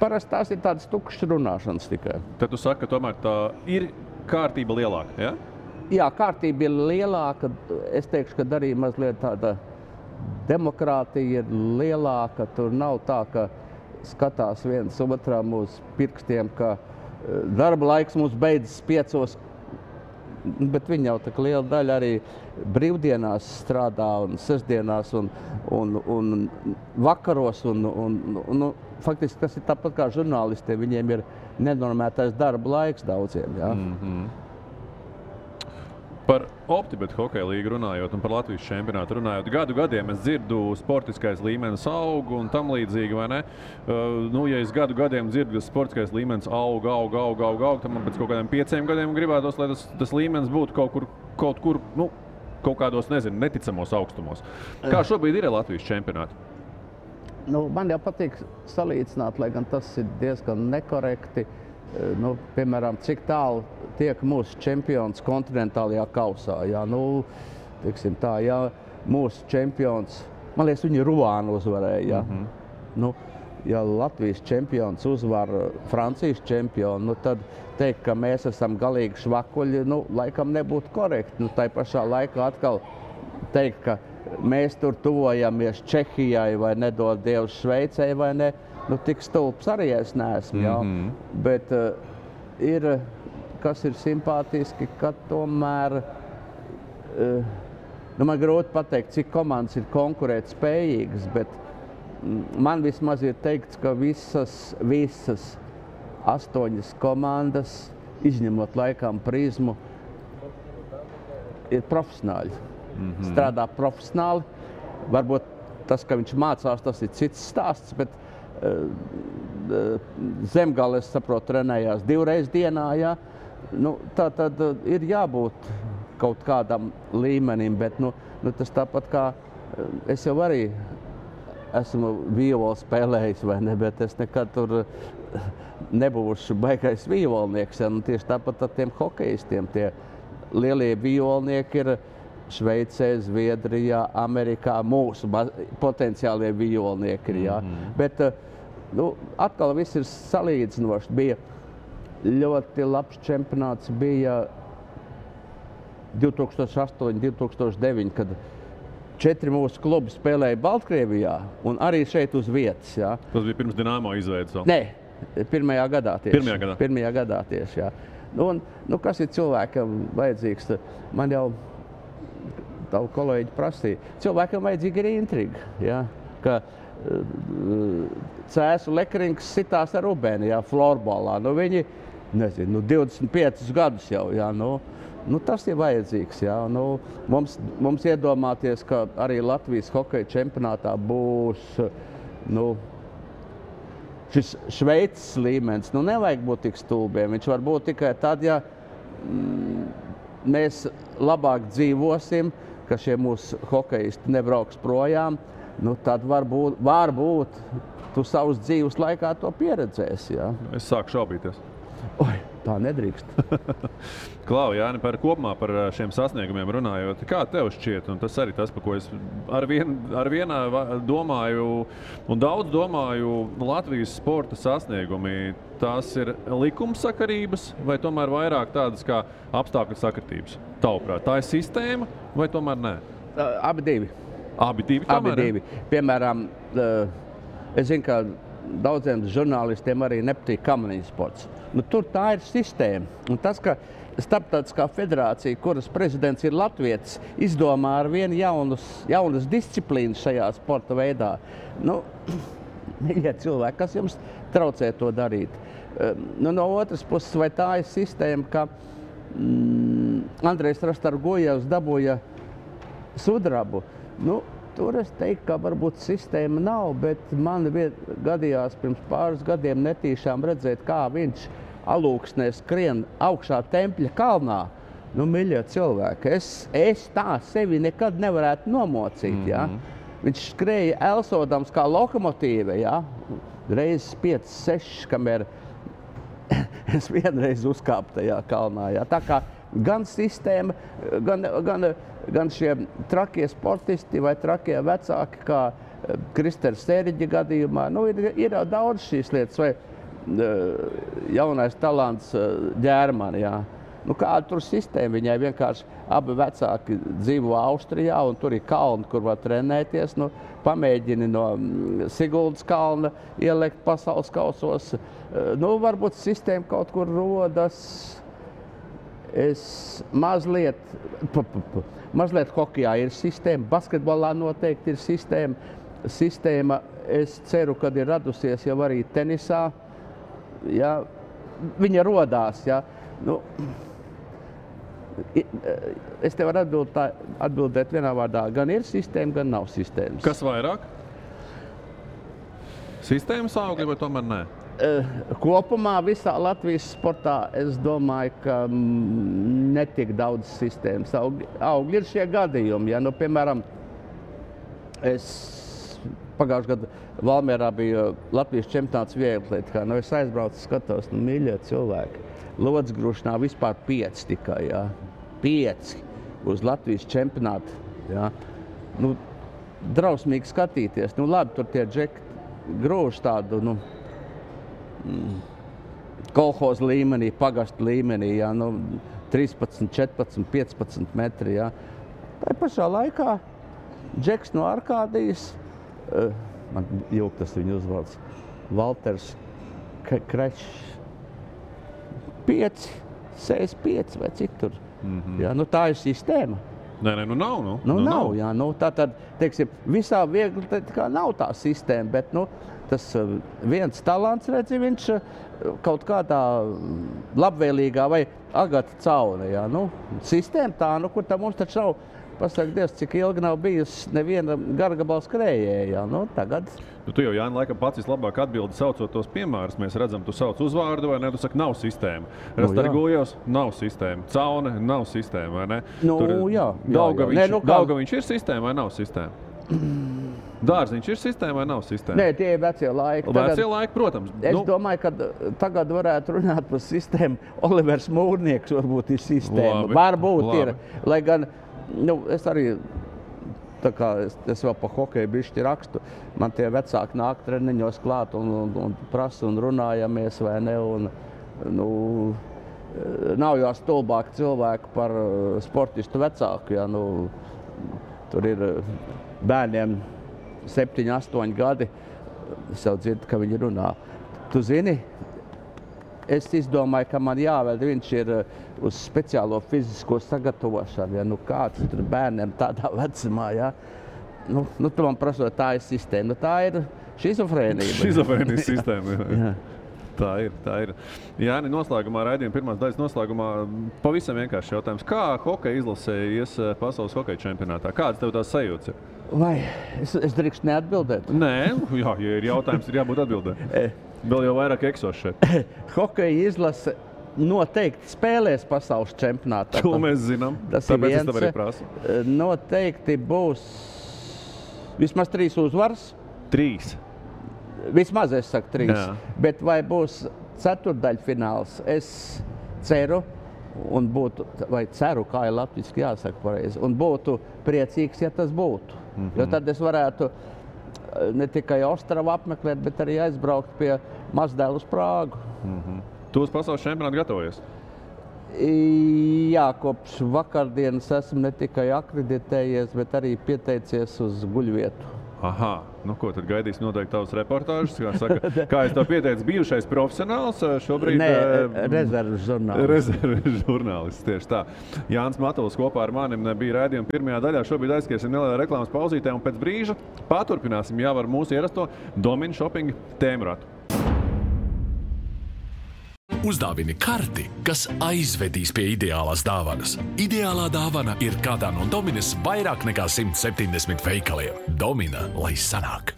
parasti tās ir tādas tukšas runāšanas tikai. Tad tu saki, ka tomēr tā ir kārtība lielāka, ja? Jā, kārtība ir lielāka, es teikšu, ka arī mazliet tāda demokrātija ir lielāka, tur nav tā, ka skatās viens otram uz pirkstiem, ka darba laiks mums beidzas 5, bet viņi jau tā liela daļa arī brīvdienās strādā un sestdienās un vakaros un faktiski tas ir tāpat kā žurnālistiem, viņiem ir nenormētais darba laiks daudziem, jā. Par Optibet hokeja līgu runājot un par Latvijas čempionātu runājot, gadiem es dzirdu sportiskais līmenis aug un tam līdzīgi, vai ne? Ja es gadiem dzirdu, ka sportiskais līmenis aug, tad man pēc kaut kādiem 5 gadiem gribētos, lai tas līmenis būtu kaut kur, kaut kādos, neticamos augstumos. Kā šobrīd ir Latvijas čempionāti? Man jau patīk salīdzināt, lai gan tas ir diezgan nekorekti. Piemēram, cik tālu tiek mūsu čempions kontinentālajā kausā. Teiksim tā, mūsu čempions, man liekas, viņi Ruānu uzvarēja. Ja Latvijas čempions uzvar Francijas čempionu, tad teikt, ka mēs esam galīgi švakuļi, laikam nebūtu korekti. Tai pašā laikā atkal teikt, ka mēs tur tuvojamies Čehijai vai nedod Dievs Šveicei vai ne. Tik stulbs arī es neesmu, bet kas ir simpātiski, ka tomēr, man grūti pateikt, cik komandas ir konkurēt spējīgas, bet man vismaz ir teikts, ka visas 8 komandas, izņemot laikam Prizmu, ir profesionāļi. Strādā profesionāli, varbūt tas, ka viņš mācās, tas ir cits stāsts, bet Zemgale, es saprotu, trenējās 2 reizes dienā, jā. Nu, tā tad ir jābūt kaut kādam līmenim, bet tas tāpat kā es jau arī esmu violu spēlējis, vai ne, bet es nekad tur nebūšu baigais violnieks. Ja? Tieši tāpat ar tiem hokejistiem. Tie lielie violnieki ir Šveicē, Zviedrijā, Amerikā, mūsu potenciālie violnieki. Ja? Bet atkal viss ir salīdzinoši. Bija ļoti labs čempionāts, bija 2008, 2009, kad 4 mūsu klubi spēlēja Baltkrievijā un arī šeit uz vietas. Jā. Tas bija pirms Dinamo izveidas vēl? Nē, pirmajā gadā tieši. Pirmajā gadā, jā. Kas ir cilvēkam vajadzīgs? Man jau tavu kolēģi prasīja. Cilvēkam vajadzīga ir intriga. Jā. Ka Cēsu Lekrings sitās ar Rubēni, jā, florbolā. Viņi, 25 gadus jau, jā, tas ir vajadzīgs. Jā. Mums iedomāties, ka arī Latvijas hokeja čempionātā būs šis Šveices līmenis. Nevajag būt tik stulbiem. Viņš var būt tikai tad, ja mēs labāk dzīvosim, ka šie mūsu hokejisti nebrauks projām. Tad varbūt tu savus dzīves laikā to pieredzēsi. Jā. Es sāku šaubīties. Oi, tā nedrīkst. Klau, Jāni, kopumā par šiem sasniegumiem runājot, kā tev šķiet, un tas arī tas, par ko es ar vienā domāju, un daudz domāju, Latvijas sporta sasniegumi, tās ir likumsakarības vai tomēr vairāk tādas kā apstākļu sakritības? Tavuprāt, tā ir sistēma vai tomēr nē? Abi divi. Abi divi. Piemēram, es zinu, ka daudziem žurnālistiem arī nepatīk kamaniņu sports. Tur tā ir sistēma. Un tas, ka Starptautiskā federācija, kuras prezidents ir latvietis, izdomā ar vienu jaunas disciplīnas šajā sporta veidā. Mīļie cilvēki, kas jums traucē to darīt? No otras puses, vai tā ir sistēma, ka Andrejs Rastargojevs dabūja sudrabu? Tur es teiktu, ka varbūt sistēma nav, bet man gadījās pirms pāris gadiem netīšām redzēt, kā viņš alūksnē skrien augšā Tempļa kalnā. Mīļie cilvēki, es tā sevi nekad nevarētu nomocīt. Ja? Viņš skrēja elsodams kā lokomotīve, ja? Reizes 5, 6, kamēr es vienreiz uzkāpu tajā kalnā. Ja? Tā kā gan sistēma, gan šie trakie sportisti vai trakie vecāki, kā Kristers Sēriģa gadījumā, ir daudz šīs lietas, vai jaunais talants Ģērmani. Jā. Kāda tur sistēma? Viņai vienkārši abi vecāki dzīvo Austrijā, un tur ir kalni, kur var trenēties. Pamēģini no Siguldas kalna ielikt pasaules kausos. Varbūt sistēma kaut kur rodas. Mazliet hokejā ir sistēma, basketbolā noteikti ir sistēma. Es ceru, ka ir radusies jau arī tenisā. Ja, viņa rodās. Ja. Es te varu atbildēt vienā vārdā. Gan ir sistēma, gan nav sistēmas. Kas vairāk? Sistēmas augļi vai tomēr nē? Kopumā visā Latvijas sportā es domāju, ka netik daudz sistēmas augļi ir šie gadījumi. Ja, piemēram, es pagājušajā gadā Valmierā bija Latvijas čempionāts vieglatlētikā. Es aizbraucu, skatos, mīļie cilvēki. Lodzgrūšanā vispār 5 tikai, ja. 5 uz Latvijas čempionātu. Ja. Drausmīgi skatīties. Labi, tur tie džeki grūž tādu, kolhoz līmenī, pagastu līmenī, ja, 13, 14, 15 metri. Ja. Tā pašā laikā džeks no Arkādijas, man jūg tas viņa uzvalds, Valters Krečs, 5, 65 vai cik tur. Ja, tā ir sistēma. Nē, nav. Nav, jā. Tātad, teiksim, visā viegli nav tā sistēma, bet, tas viens talants, redzi, viņš kaut kādā labvēlīgā vai Agata Caune, jā. Sistēma tā, kur tā mums taču nav pasaka Dievs, cik ilgi nav bijusi neviena gargabala skrējēja. Tagad. Tu jau, Jāni, laikam pats vislabāk atbildi saucot tos piemērus. Mēs redzam, tu sauc uzvārdu, vai ne? Tu saki, nav sistēma. Rastargojos, nav sistēma. Caune, nav sistēma, vai ne? Daugaviņš ir sistēma vai nav sistēma? Dārziņš ir sistēma vai nav sistēma? Nē, tie ir vecie laiki. Vecie laiki, protams. Es domāju, ka tagad varētu runāt par sistēmu. Olivers Mūrnieks varbūt ir sistēma. Varbūt ir. Lai gan, es arī, tā kā es vēl pa hokeju bišķi rakstu, man tie vecāki nāk treniņos klāt un prasa un runājamies, vai ne? Nav jau stulbāk cilvēku par sportistu vecāku, ja, tur ir bērniem 7, 8 gadi, es jau dzirdu, ka viņi runā. Tu zini, es izdomāju, ka man jāvēl, viņš ir uz speciālo fizisko sagatavošanu, ja, kāds tur bērniem tādā vecumā, ja. Tu man prasot, tā ir sistēma, tā ir šizofrēnija. Šizofrēnijas sistēma, jā. Tā ir. Jāni, noslēgumā, raidījuma pirmās daļas noslēgumā, pavisam vienkārši jautājums. Kā hokeja izlasē ies pasaules hokeja čempionātā? Kādas tev tās sajūtas ir? Vai es drīkst neatbildēt? Nē, jā, ja ir jautājums, ir jābūt atbildē. Vēl jau vairāk eksos šeit. Hokeja izlase noteikti spēlēs pasaules čempionātā. To mēs zinām, tāpēc es tev arī prasu. Noteikti būs vismaz 3 uzvaras. 3. Vismaz es saku 3, jā. Bet vai būs ceturdaļfināls, es ceru, un būtu, vai ceru, kā ir latviski jāsaka pareizi, un būtu priecīgs, ja tas būtu. Jo tad es varētu ne tikai Ostravu apmeklēt, bet arī aizbraukt pie mazdēlu uz Prāgu. Tu uz pasaules čempionātu gatavojies? Jā, kopš vakardienas esmu ne tikai akreditējies, bet arī pieteicies uz guļvietu. Aha, ko tad gaidīs noteikti tavas reportāžas? Kā es to pieteicu, bijušais profesionāls, šobrīd... Nē, rezerves žurnālists. Rezerves žurnālists, tieši tā. Jānis Matuls kopā ar manim bija raidījuma pirmajā daļā. Šobrīd aizskriesim nelielā reklāmas pauzītē un pēc brīža paturpināsim jau ar mūsu ierasto Domina Shopping tēmratu. Uzdāvini karti, kas aizvedīs pie ideālās dāvanas. Ideālā dāvana ir kādā no Dominas vairāk nekā 170 veikaliem. Domina, lai sanāk!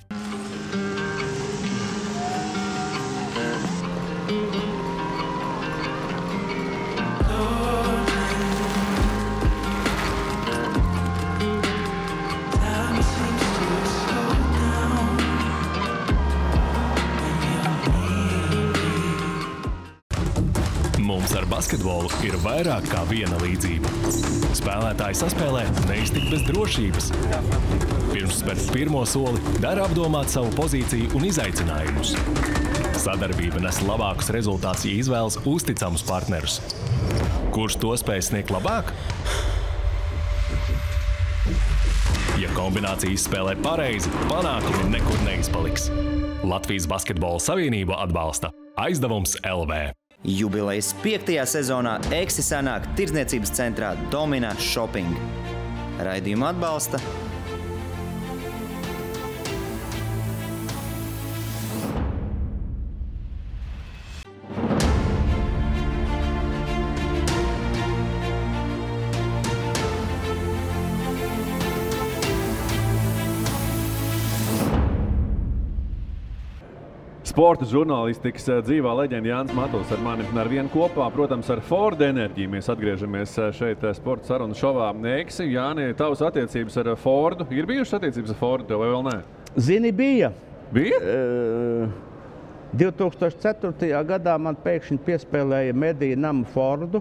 Mums ar basketbolu ir vairāk kā viena līdzība. Spēlētāji saspēlē neiztikt bez drošības. Pirms spērt pirmo soli, dara apdomāt savu pozīciju un izaicinājumus. Sadarbība nes labākus rezultātus, ja izvēlas uzticamus partnerus. Kurš to spēj sniegt labāk? Ja kombinācija izspēlē pareizi, panākumi nekur neizpaliks. Latvijas Basketbola Savienība atbalsta Aizdevums LV. Jubilejas 5. sezonā Eksi sanāk tirdzniecības centrā Domina Shopping. Raidījumu atbalsta Sporta žurnālistikas dzīvā leģenda Jānis Matuls ar mani ar vienu kopā, protams, ar Ford enerģiju. Mēs atgriežamies šeit sporta sarunu šovā Eksi. Jāni, tavas attiecības ar Fordu, ir bijušas attiecības ar Fordu tev vai vēl nē? Zini, bija. Bija? 2004. gadā man pēkšņi piespēlēja mediju namu Fordu.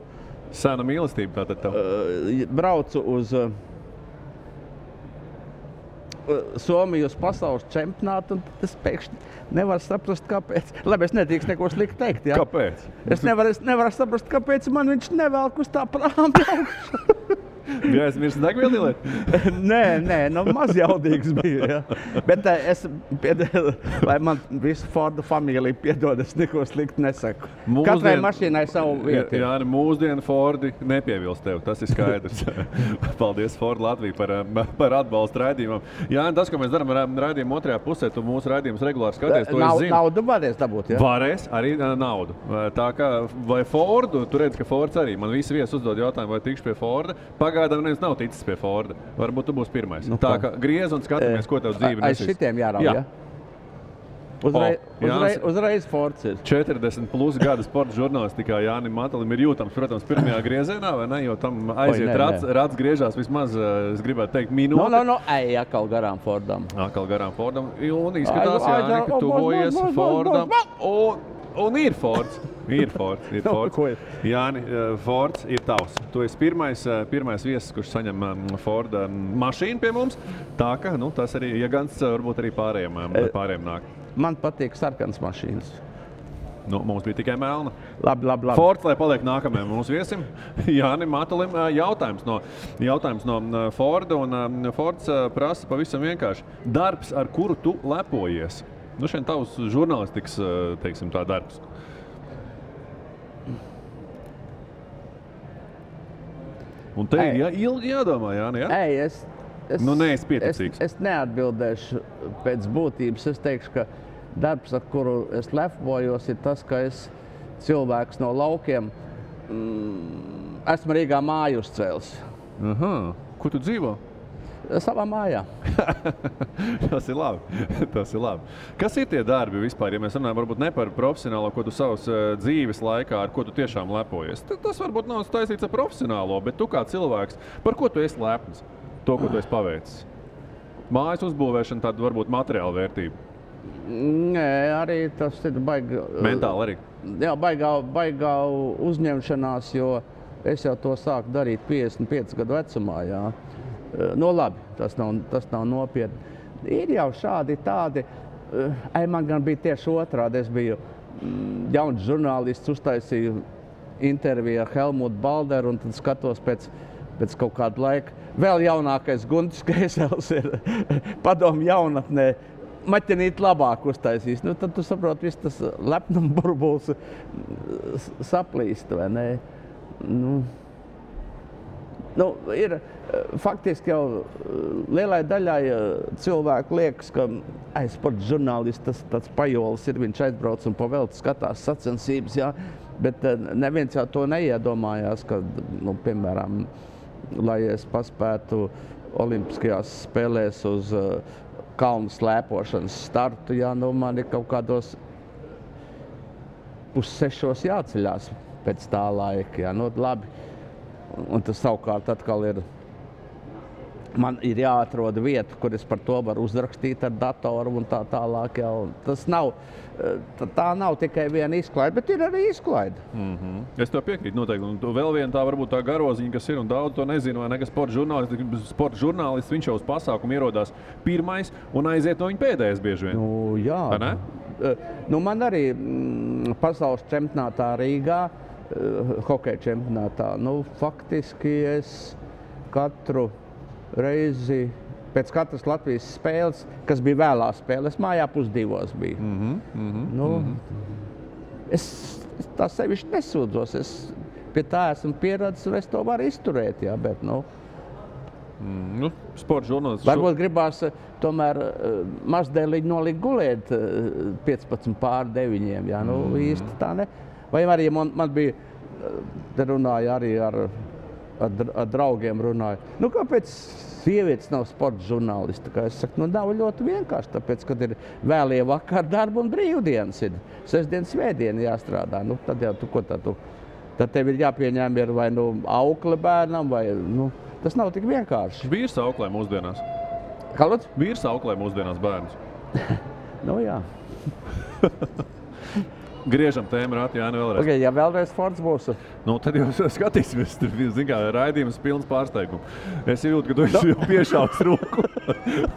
Sena mīlestība tātad tev? Braucu uz Somiju uz pasaules čempionātu, un tas pēkšņi nevar saprast, kāpēc. Labi, es nedrīkst neko slikti teikt, jā. Kāpēc? Es nevaru saprast, kāpēc man viņš nevelk uz tā prāma augšu. Bija aizmirst degvielu ieliet? Nē, mazjaudīgs bija, jā. Bet lai man visu Fordu familiju piedod, es neko slikti nesaku. Katrai mašīnai savu vietu. Jā, mūsdienu Fordi nepievilst tev, tas ir skaidrs. Paldies Ford Latviju par atbalstu raidījumam. Jā, tas, ko mēs darām raidījumu otrajā pusē, tu mūsu raidījumus regulāri skaties, to es zinu. Naudu varēs dabūt, jā? Varēs, arī naudu. Tā kā, vai Fordu, tu redz, ka Fords arī, man visi viesi uzdod jautājumu, vai tikšu pie Forda. pagaidām neviens nav ticis pie Forda. Varbūt tu būsi pirmais. Tā kā griez un skatāmies, ko tev dzīve nesīs. Aiz šitiem jārauj, ja? Uzreiz Fords ir. 40 plus gadu sporta žurnālistikā Jānim Matalim ir jūtams, protams, pirmajā griezienā, vai ne? Jo tam aiziet rats griežās vismaz, es gribētu teikt, minūte. Ej, atkal garām Fordam. Un izskatās, Jāni, ka tuvojies Fordam. Un ir Fords. Ir Fords. Jāni, Fords ir tavs. Tu esi pirmais viesis, kurš saņem Forda mašīnu pie mums. Tā ka, tas arī, ja gans, varbūt arī pārējiem nāk. Man patīk sarkans mašīnas. Mums bija tikai melna. Labi. Fords, lai paliek nākamajam mūsu viesim. Jānim Matalim jautājums no Forda. Un Fords prasa pavisam vienkārši. Darbs, ar kuru tu lepojies? Šeit tavs žurnālistikas, teiksim, tā darbs. Un te ir ilgi jādomā, Jāni, ja? Neesi pieticīgs. Es neatbildēšu pēc būtības. Es teikšu, ka darbs, ar kuru es lepojos, ir tas, ka es cilvēks no laukiem esmu Rīgā māju uzcēlis. Kur tu dzīvo? Savā mājā. Tas ir labi. Kas ir tie darbi vispār, ja mēs runājam varbūt ne par profesionālo, ko tu savas dzīves laikā, ar ko tu tiešām lepojies? Tas varbūt nav taisīts ar profesionālo, bet tu kā cilvēks, par ko tu esi lepns? To, ko tu esi paveicis? Mājas uzbūvēšana, tāda varbūt materiāla vērtība? Nē, arī tas ir baigi... Mentāli arī? Jā, baigā uzņemšanās, jo es jau to sāku darīt 55 gadu vecumā, jā. Labi, tas nav nopietni. Ir jau šādi tādi, man gan bija tieši otrādi. Es biju jauns žurnālists, uztaisīju interviju ar Helmutu Balderu un tad skatos pēc kaut kāda laika. Vēl jaunākais Guntis Kreisels ir padomu jaunatnē. Maķenīt labāk uztaisīs. Tad tu saproti, viss tas lepnuma burbulis saplīst, vai ne? Ir faktiski jau lielai daļai cilvēku liekas, ka sporta žurnālists tas tāds pajolis ir, viņš aizbrauc un pavelti skatās sacensības, jā, bet neviens jau to neiedomājās, ka, piemēram, lai es paspētu olimpiskajās spēlēs uz kalnu slēpošanas startu, jā, man ir kaut kādos 5:30 jāceļās pēc tā laika, jā, labi. Un tas savukārt atkal ir, man ir jāatrod vieta, kur es par to varu uzrakstīt ar datoru un tā tālāk. Jā. Tas nav, tā nav tikai viena izklaide, bet ir arī izklaide. Es tev piekrītu noteikti. Un vēl viena tā varbūt tā garoziņa, kas ir, un daudz to nezinu, vai ne, ka sporta žurnālists, viņš jau uz pasākumu ierodās pirmais un aiziet no viņa pēdējais bieži vien. Jā. Vai ne? Man arī pasaules čempionātā Rīgā, hokeja čempionātā, faktiski es katru reizi, pēc katras Latvijas spēles, kas bija vēlās spēles, mājā 1:30 bija. Es tā sevišķi nesūdzos, es pie tā esmu pieredzis un es to varu izturēt, jā, bet, sporta žurnālists. Varbūt gribās tomēr mazdēliņi nolikt gulēt 15:45, jā, īsti tā ne. Vai arī man bija, te runāja arī ar draugiem runāju, kāpēc sievietes nav sporta žurnālisti? Es saku, nav ļoti vienkārši, tāpēc, kad ir vēlie vakar darba un brīvdienas ir. Sestdien, svētdien jāstrādā, tad jau tad tev ir jāpieņem ir vai aukle bērnam, vai, tas nav tik vienkārši. Vīrs auklē mūsdienās. Kā lūdzu? Vīrs auklē mūsdienās bērnus. Jā. Griežam tēmu rāti, Jāni, vēlreiz. Okay, ja vēlreiz Fords būs. Tad jau skatīsimies, tur raidījums pilns pārsteigumu. Es jūtu, ka tu esi jau piešāvis roku,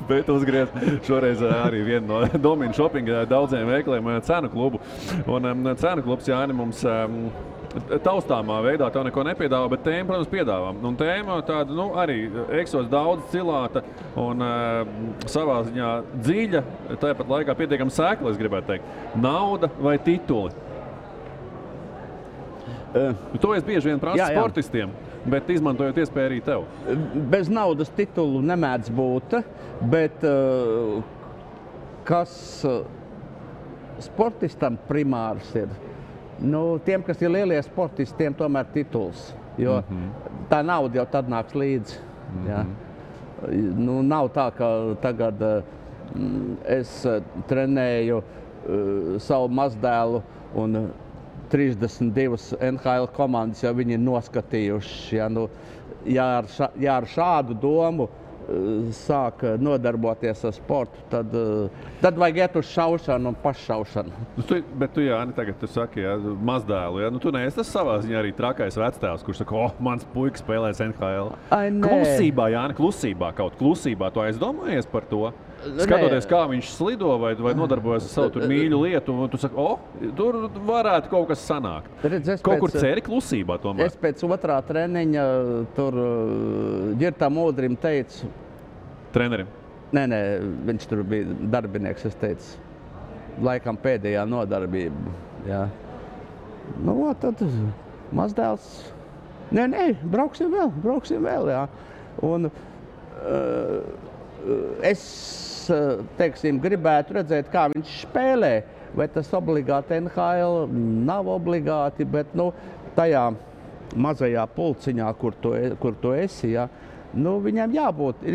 bet uzgriez šoreiz arī vienu no Domina Shoppinga daudziem veikaliem cenu klubu. Un cenu klubs, Jāni, mums taustāmā veidā tev neko nepiedāvā, bet tēma, protams, piedāvā. Un tēma tāda, arī eksos daudz cilāta un savā ziņā dziļa, tāpat laikā pietiekami sēkla, es gribētu teikt. Nauda vai tituli? To es bieži vien prasu sportistiem, bet izmantojot iespēju arī tev. Bez naudas titulu nemēdz būt, bet kas sportistam primārs ir? Tiem, kas ir lielie sportisti, tiem tomēr tituls. Jo tā nauda jau tad nāks līdzi. Jā. Nu, nav tā, ka tagad es trenēju savu mazdēlu un 32 NHL komandas jau viņi ir noskatījuši. Ja, nu, ja ar šādu domu sāk nodarboties ar sportu, tad vajag iet uz šaušanu un paššaušanu. Bet tu, Jāni, tagad tu saki, ja, mazdēlu, ja? Nu, tu neesi tas savā ziņā arī trakais vectēvs, kurš saka, mans puika spēlēs NHL. Klusībā, Jāni, klusībā, tu aizdomājies par to? Skatoties, kā viņš slido vai nodarbojas ar savu tur mīļu lietu, un tu saki, tur varētu kaut kas sanākt. Kaut kur ceri klusībā tomēr. Es pēc otrā treniņa tur Ģirtam Udrim teicu. Trenerim? Nē, viņš tur bija darbinieks, es teicu. Laikam pēdējā nodarbība, jā. Nu, tad mazdēls. Nē, brauksim vēl, jā. Un es, teiksim, gribētu redzēt, kā viņš spēlē. Vai tas obligāti NHL nav obligāti, bet, nu, tajā mazajā pulciņā, kur tu esi, jā, nu, viņam jābūt.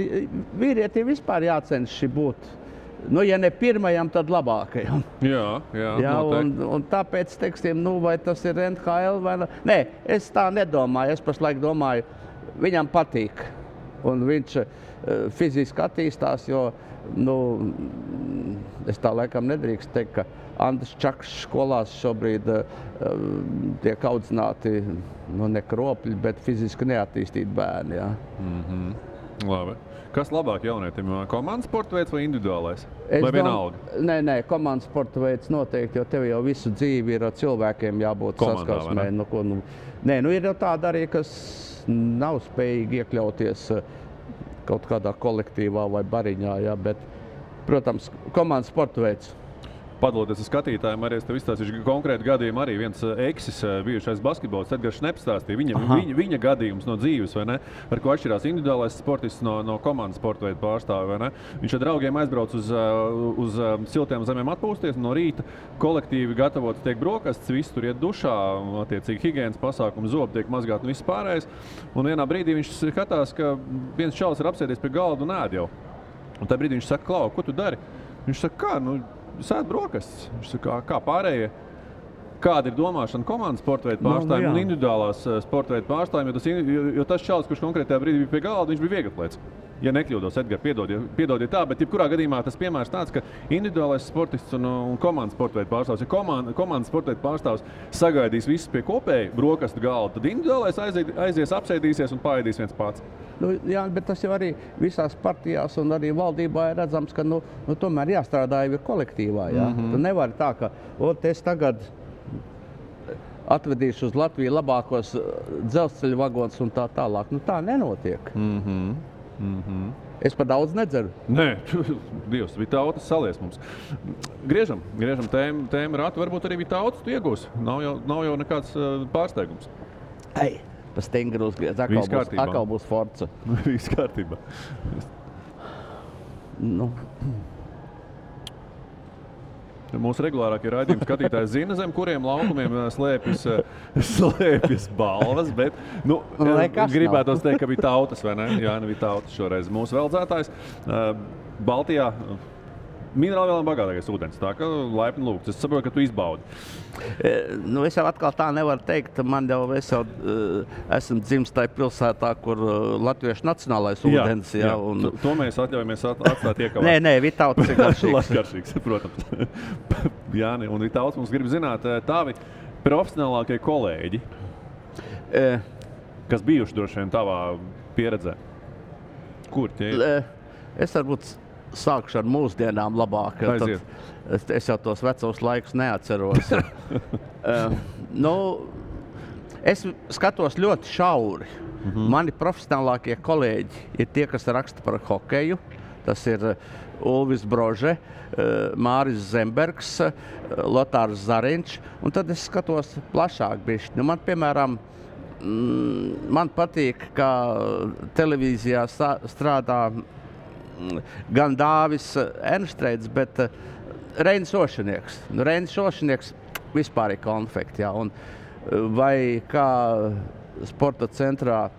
Vīrietim vispār jācenšas būt. Nu, ja ne pirmajam, tad labākajam. Jā, un tāpēc, teiksim, nu, vai tas ir NHL vai ne? Nē, es tā nedomāju. Es pašlaik domāju, viņam patīk. Un viņš fiziski attīstās, jo, nu, es tā laikam nedrīkst teikt, ka Andris Čakšs skolās šobrīd tiek audzināti, nu, ne kropļi, bet fiziski neattīstīti bērni, jā. Labi. Kas labāk jaunietim? Komandas sporta veids vai individuālais? Vai vienalga? Nē, komandas sporta veids noteikti, jo tev jau visu dzīvi ir cilvēkiem jābūt saskarsmē. Nē, ir jau tāda arī, kas nav spējīgi iekļauties kaut kādā kolektīvā vai bariņā, jā, bet, protams, komandas sporta veids. Padaloties ar skatītājiem, arī es tev izstāstīšu konkrētu gadījumu. Arī viens eksis, bijušais basketbolists, Edgars Šneps stāstīja viņa gadījums no dzīves, vai ne? Ar ko atšķirās individuālais sportists no komandas sporta veidu pārstāvi, vai ne? Viņš ar draugiem aizbrauc uz siltiem zemēm atpūsties, no rīta kolektīvi gatavots tiek brokastis, visi tur iet dušā, attiecīgi higienas pasākumi, zobi tiek mazgāti un viss pārējais. Un vienā brīdī viņš skatās, ka viens čalis ir apsēdies pie galda un ēd jau. Un tajā brīdī viņš saka, Klau, ko tu dari? Viņš saka, kā, sēd brokastis. Viņš saka, kā pārējie, kāda ir domāšana komandas sporta veidu pārstāvjiem un individuālās sporta veidu pārstāvjiem, jo tas čalis, kurš konkrētajā brīdī bija pie galda, viņš bija vieglatlēts. Ja nekļūdos, Edgar, piedodiet tā, bet jebkurā gadījumā tas piemērs tāds, ka individuālais sportists un komandas sporta veidu pārstāvs, ja komandas sporta veidu pārstāvs sagaidīs visus pie kopēja brokastu galda, tad individuālais aizies, apsēdīsies un paēdīs viens pats. Nu, jā, bet tas jau arī visās partijās un arī valdībā ir redzams, ka tomēr jāstrādā jau ir kolektīvā. Jā. Tu nevari tā, ka es tagad atvedīšu uz Latviju labākos dzelzceļa vagonus un tā tālāk. Nu, tā nenotiek. Es par daudz nedzeru. Nē, Dievs, Vitautas salies mums. Griežam tēmu ratu, varbūt arī Vitautas tu iegūsi. Nav jau nekāds pārsteigums. Pa stingru uzgriez, atkal būs Forza. Viss kārtībā. Nu. Mūsu regulārākie raidījumi skatītāji zina, zem kuriem laukumiem slēpjas balvas, bet gribētos teikt, ka bija Tautas, vai ne? Jā, bija Tautas šoreiz. Mūsu veldzētājs Baltijā minerālvielām bagātākais ūdens, tā ka laipni lūgts. Es saprotu, ka tu izbaudi. Es jau atkal tā nevaru teikt. Es jau esmu dzimis tajā pilsētā, kur latviešu nacionālais ūdens. Jā. To mēs atļaujamies atstāt iekavāt. Nē, Vitautas ir garšīgs. Garšīgs, protams. Jāni, un Vitautas mums grib zināt tavi profesionālākie kolēģi, kas bijuši droši vien tavā pieredzē. Kur tie ir? Es varbūt sākšu ar mūsdienām labāk. Es jau tos vecos laikus neatceros. Es skatos ļoti šauri. Mani profesionālākie kolēģi ir tie, kas raksta par hokeju. Tas ir Ulvis Brože, Māris Zembergs, Lotārs Zariņš. Un tad es skatos plašāk bišķi. Man, piemēram, man patīk, kā televīzijā strādā gan Dāvis Ernstreits, bet Reinis Ošinieks. Reinis Ošinieks vispār ir konfekti, jā. Un vai kā sporta centrā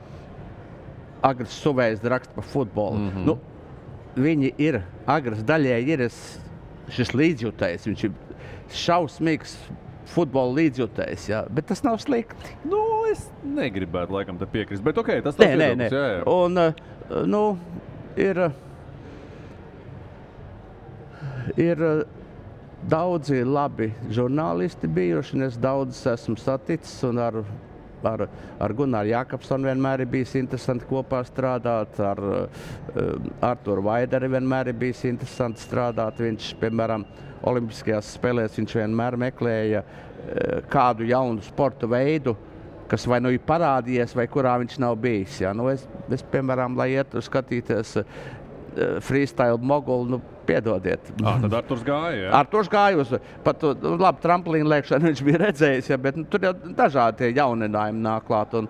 Agris Suvējs raksta par futbolu. Nu, viņi ir, Agris daļēji ir šis līdzjutējs, viņš ir šausmīgs futbola līdzjutējs, jā, bet tas nav slikti. Nu, es negribētu laikam te piekrist, bet ok, tas tas Nē. Jā. Un, ir daudzi labi žurnālisti bijuši, un es daudz esmu saticis, un ar Gunāru Jākapsonu vienmēr ir bijis interesanti kopā strādāt, ar Arturu Vaideri vienmēr ir bijis interesanti strādāt. Viņš, piemēram, Olimpiskajās spēlēs viņš vienmēr meklēja kādu jaunu sporta veidu, kas vai nu ir parādījies, vai kurā viņš nav bijis. Ja? Nu, es, piemēram, lai ietu skatīties freestyle mogulu, nu, piedodiet. Tad Arturs gāja, jā? Arturs gāja uz pat labi tramplīnu lēkšanu, viņš bija redzējis, ja, bet tur jau dažādi tie jauninājumi nāk klāt. Un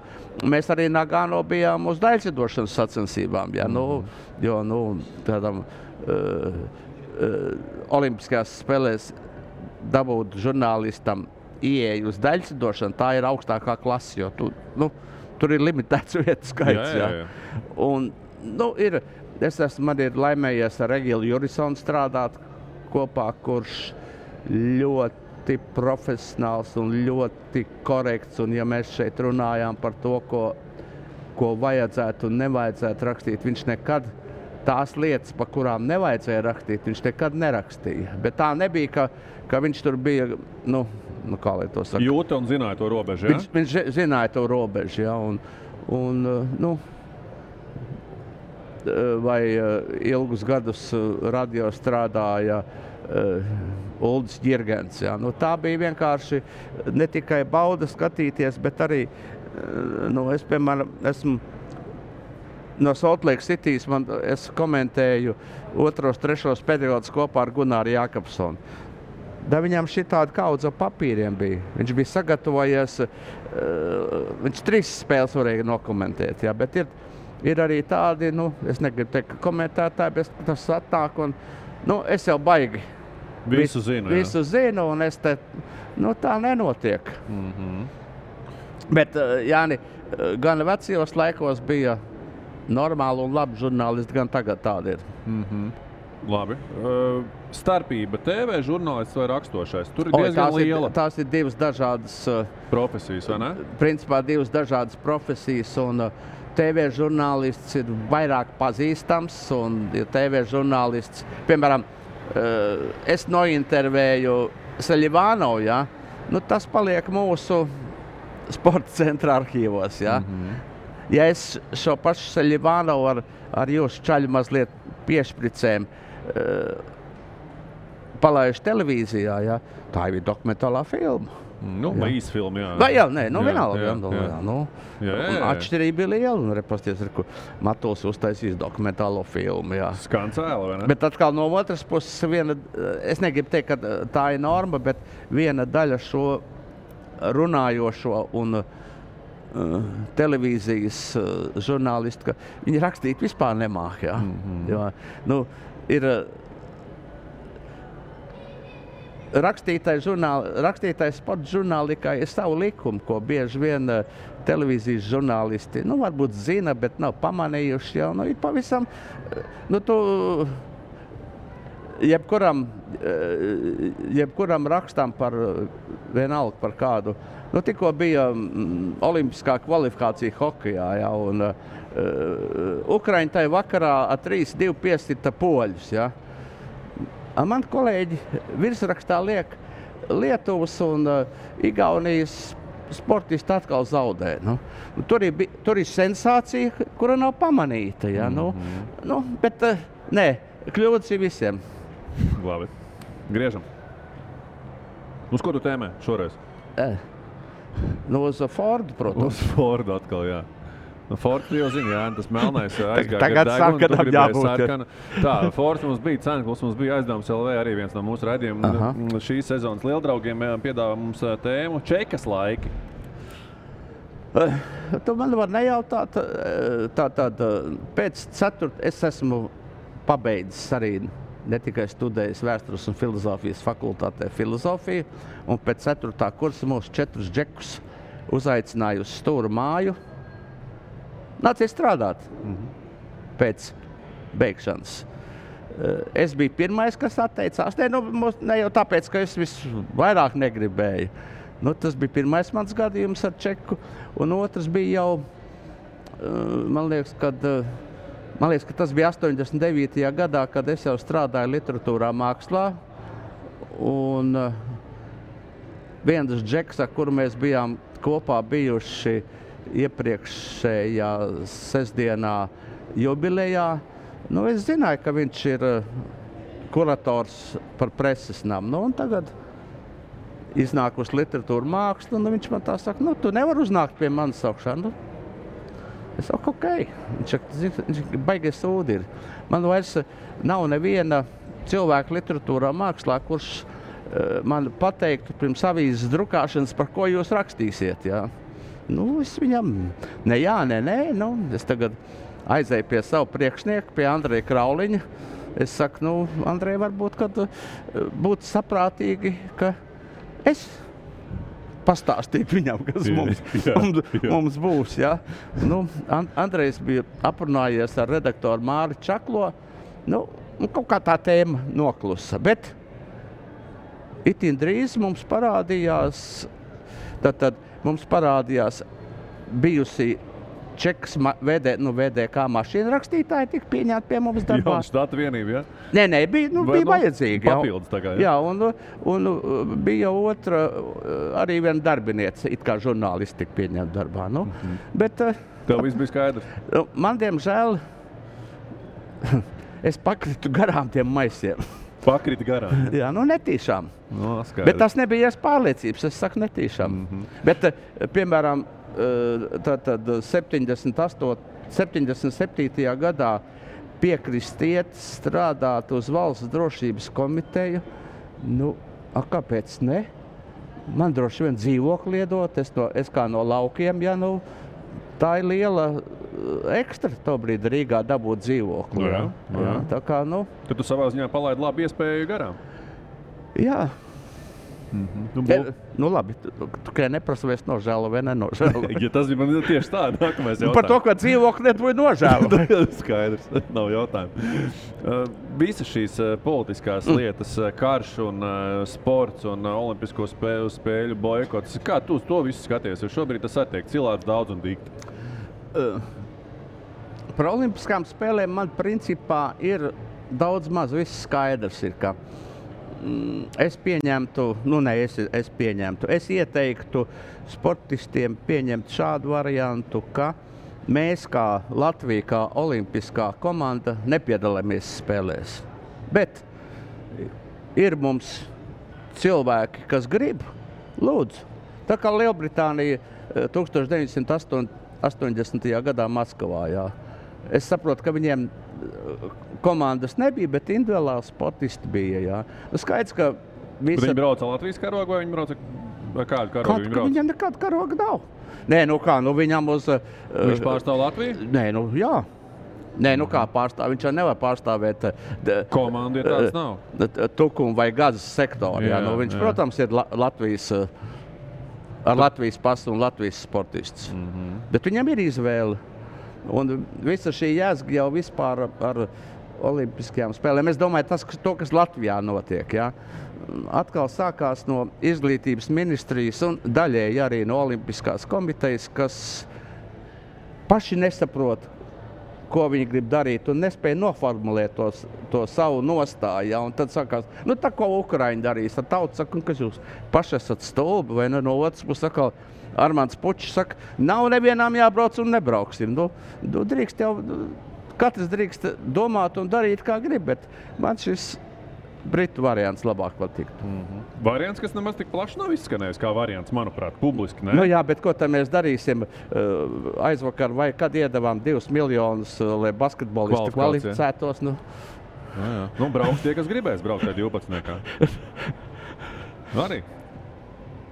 mēs arī Nagano bijām uz daļcedošanas sacensībām, ja, jo tādam Olimpiskajās spēlēs dabūt žurnālistam ieeju uz daļcedošanu, tā ir augstākā klase, jo tur ir limitēts vietu skaits. Jā. Un, man ir laimējies ar Egilu Jurisonu strādāt kopā, kurš ļoti profesionāls un ļoti korekts. Un ja mēs šeit runājām par to, ko vajadzētu un nevajadzētu rakstīt, viņš nekad tās lietas, pa kurām nevajadzēja rakstīt, viņš nekad nerakstīja. Bet tā nebija, ka viņš tur bija, kā lai to saka. Jūta un zināja to robežu, jā? Viņš zināja to robežu, jā. Vai ilgus gadus radio strādāja Uldis Ģirgens. Ja? Tā bija vienkārši ne tikai bauda skatīties, bet arī, es, piemēram, esmu no Salt Lake Citys, es komentēju 2. 3. periodus kopā ar Gunāru Jākapsonu. Da viņam šitādi kaudze papīriem bija. Viņš bija sagatavojies, viņš 3 spēles varēja nokomentēt, ja? Bet ir arī tādi, es negribu teikt, ka komentētāji, bet tas atnāk un, es jau baigi. Visu zinu, un es te, tā nenotiek. Bet, Jāni, gan vecajos laikos bija normāli un labi žurnālisti, gan tagad tādi ir. Labi. Starpība TV žurnālists vai rakstošais? Tur ir diezgan liela. Tās ir 2 dažādas profesijas, vai ne? Principā 2 dažādas profesijas, un TV žurnālists ir vairāk pazīstams, un TV žurnālists, piemēram, es nointervēju Seļivānovu, ja? Tas paliek mūsu sporta centra arhīvos, ja? Ja es šo pašu Seļivānovu ar jūsu čaļu mazliet piešpricēm palaišu televīzijā, ja? Tā ir dokumentālā filma. Īsfilma, jā. Vienalga. Atšķirība ir liela, un repasties, Matuls uztaisīs dokumentālo filmu, jā. Skan cēla, vai ne? Bet atkal no otras puses es negribu teikt, ka tā ir norma, bet viena daļa šo runājošo un televīzijas žurnālisti, ka viņi rakstīt vispār nemāk, jā. Jo, ir rakstītais sporta žurnālikā ir savu likumu, ko bieži vien televīzijas žurnālisti, varbūt zina, bet nav pamanījuši jau, ir pavisam, jebkuram rakstam par vienalga par kādu, tikko bija olimpiskā kvalifikācija hokejā, ja, un Ukraiņi tai vakarā ar 3-2 piesita poļus, ja. Man kolēģi virsrakstā liek Lietuvas un Igaunijas sportisti atkal zaudē. Tur ir sensācija, kura nav pamanīta. Ja? Bet kļūdas ir visiem. Labi. Griežam. Uz ko tu tēmē šoreiz? Uz Fordu, protams. Uz Fordu atkal, jā. Fords jau zina, jā, tas melnais aizgāja. Tagad sarkanam jābūt. Tā, Fords mums bija Cenklis, mums bija Aizdevums LV arī viens no mūsu raidījumiem. Šīs sezonas lieldraugiem piedāvā mums tēmu Čekas laiki. Tu man var nejautāt, pēc 4. es esmu pabeidzis arī ne tikai studējis vēstures un filozofijas fakultātē filozofiju, un pēc 4. kursa mūs 4 džekus uzaicināja uz Stūru māju. nāciet strādāt pēc beigšanas. Es biju pirmais, kas atteicās. Ne jau tāpēc, ka es visvairāk negribēju. Tas bija pirmais mans gadījums ar čeku, un otrs bija jau, man liekas, ka tas bija 89. gadā, kad es jau strādāju literatūrā mākslā, un viens džeks, ar kuru mēs bijām kopā bijuši iepriekšējā sestdienā jubilejā, es zināju, ka viņš ir kurators par preses namu, un tagad iznāk uz literatūru mākslu, un viņš man tā saka, tu nevar uznākt pie manis augšā. Es saku, ok. Viņš baigies sūdi ir. Man vairs nav neviena cilvēka literatūrā mākslā, kurš man pateiktu pirms avīzes drukāšanas, par ko jūs rakstīsiet. Jā. Es viņam, nē. Es tagad aizēju pie savu priekšnieku, pie Andreja Krauliņa. Es saku, Andrej, varbūt, kad būtu saprātīgi, ka es pastāstīju viņam, kas mums būs. Ja? Andrejs bija aprunājies ar redaktoru Māri Čaklo. Kaut kā tā tēma noklusa. Bet itin drīz mums parādījās bijusi Čekas VDK mašīna rakstītāji tika pieņemti pie mums darbā. Jā, štata vienība, ja? Nē, bija vajadzīgi. Papildus tagad, jā. Un bija otra, arī viena darbiniece, it kā žurnālisti tika pieņemti darbā. Bet, tev viss bija skaidrs? Man, diemžēl, es pakritu garām tiem maisiem. Pakriti garām? Jā, netīšām. Bet tas nebija pārliecības, es saku netīšām. Bet, piemēram, tad 77. gadā piekrist iet strādāt uz Valsts drošības komiteju. Kāpēc ne? Man droši vien dzīvokli iedot, es kā no laukiem, tā ir liela ekstra tobrīd Rīgā dabūt dzīvokli. Jā. Tā kā, Tad tu savā ziņā palaidi labu iespēju garām? Jā. Labi, tu tikai neprasa, vai es nožēlu vai nenožēlu. Ja tas bija man tieši tā, nākamais jautājums. Par to, ka dzīvokli nebūtu nožēlu. Skaidrs, nav jautājumu. Visas šīs politiskās lietas, karš un sports un olimpisko spēļu boikots, kā tu to visu skaties? Jo šobrīd tas attiek cilāts daudz un dikti. Par olimpiskām spēlēm man principā ir daudz maz viss skaidrs ir, ka es ieteiktu sportistiem pieņemt šādu variantu, ka mēs kā Latvija, kā olimpiskā komanda nepiedalāmies spēlēs. Bet ir mums cilvēki, kas grib, lūdzu. Tā kā Lielbritānija 1980. gadā Maskavā, jā. Es saprotu, ka viņiem komandas nebija, bet individuāli sportisti bija, jā. Skaidrs, ka Viņi brauca Latvijas karogu vai viņi brauca kādu karogu viņi brauca? Viņam nekāda karoga nav. Nē, viņam uz... Viņš pārstāv Latviju? Nē, jā. Nē, kā pārstāv? Viņš jau nevar pārstāvēt... Komanda ir tāds nav? Tukumu vai gazas sektoru, jā. Viņš, protams, ir Latvijas... ar Latvijas pasu un Latvijas sportists. Bet viņam ir izvēle. Un visa šī jēzga jau vispār ar olimpiskajām spēlēm. Es domāju, kas Latvijā notiek. Ja? Atkal sākās no izglītības ministrijas un daļēji arī no olimpiskās komitejas, kas paši nesaprot, ko viņi grib darīt un nespēja noformulēt to savu nostāju. Ja? Un tad sākās, tā ko Ukraiņi darīs, tad tauta saka, kas jūs paši esat stulbi, vai no otras puses atkal Armands Pučs saka, nav nevienām jābrauc un nebrauksim. Drīkst jau, katrs drīkst domāt un darīt, kā grib, bet man šis britu variants labāk patīk. Variants, kas nemaz tik plaši nav izskanējis kā variants, manuprāt, publiski, ne? Jā, bet ko tad mēs darīsim aizvakar vai kad iedavām 2 miljonus, lai basketbolisti kvalificētos? Brauks tie, kas gribēs braukt tajā 12. Arī.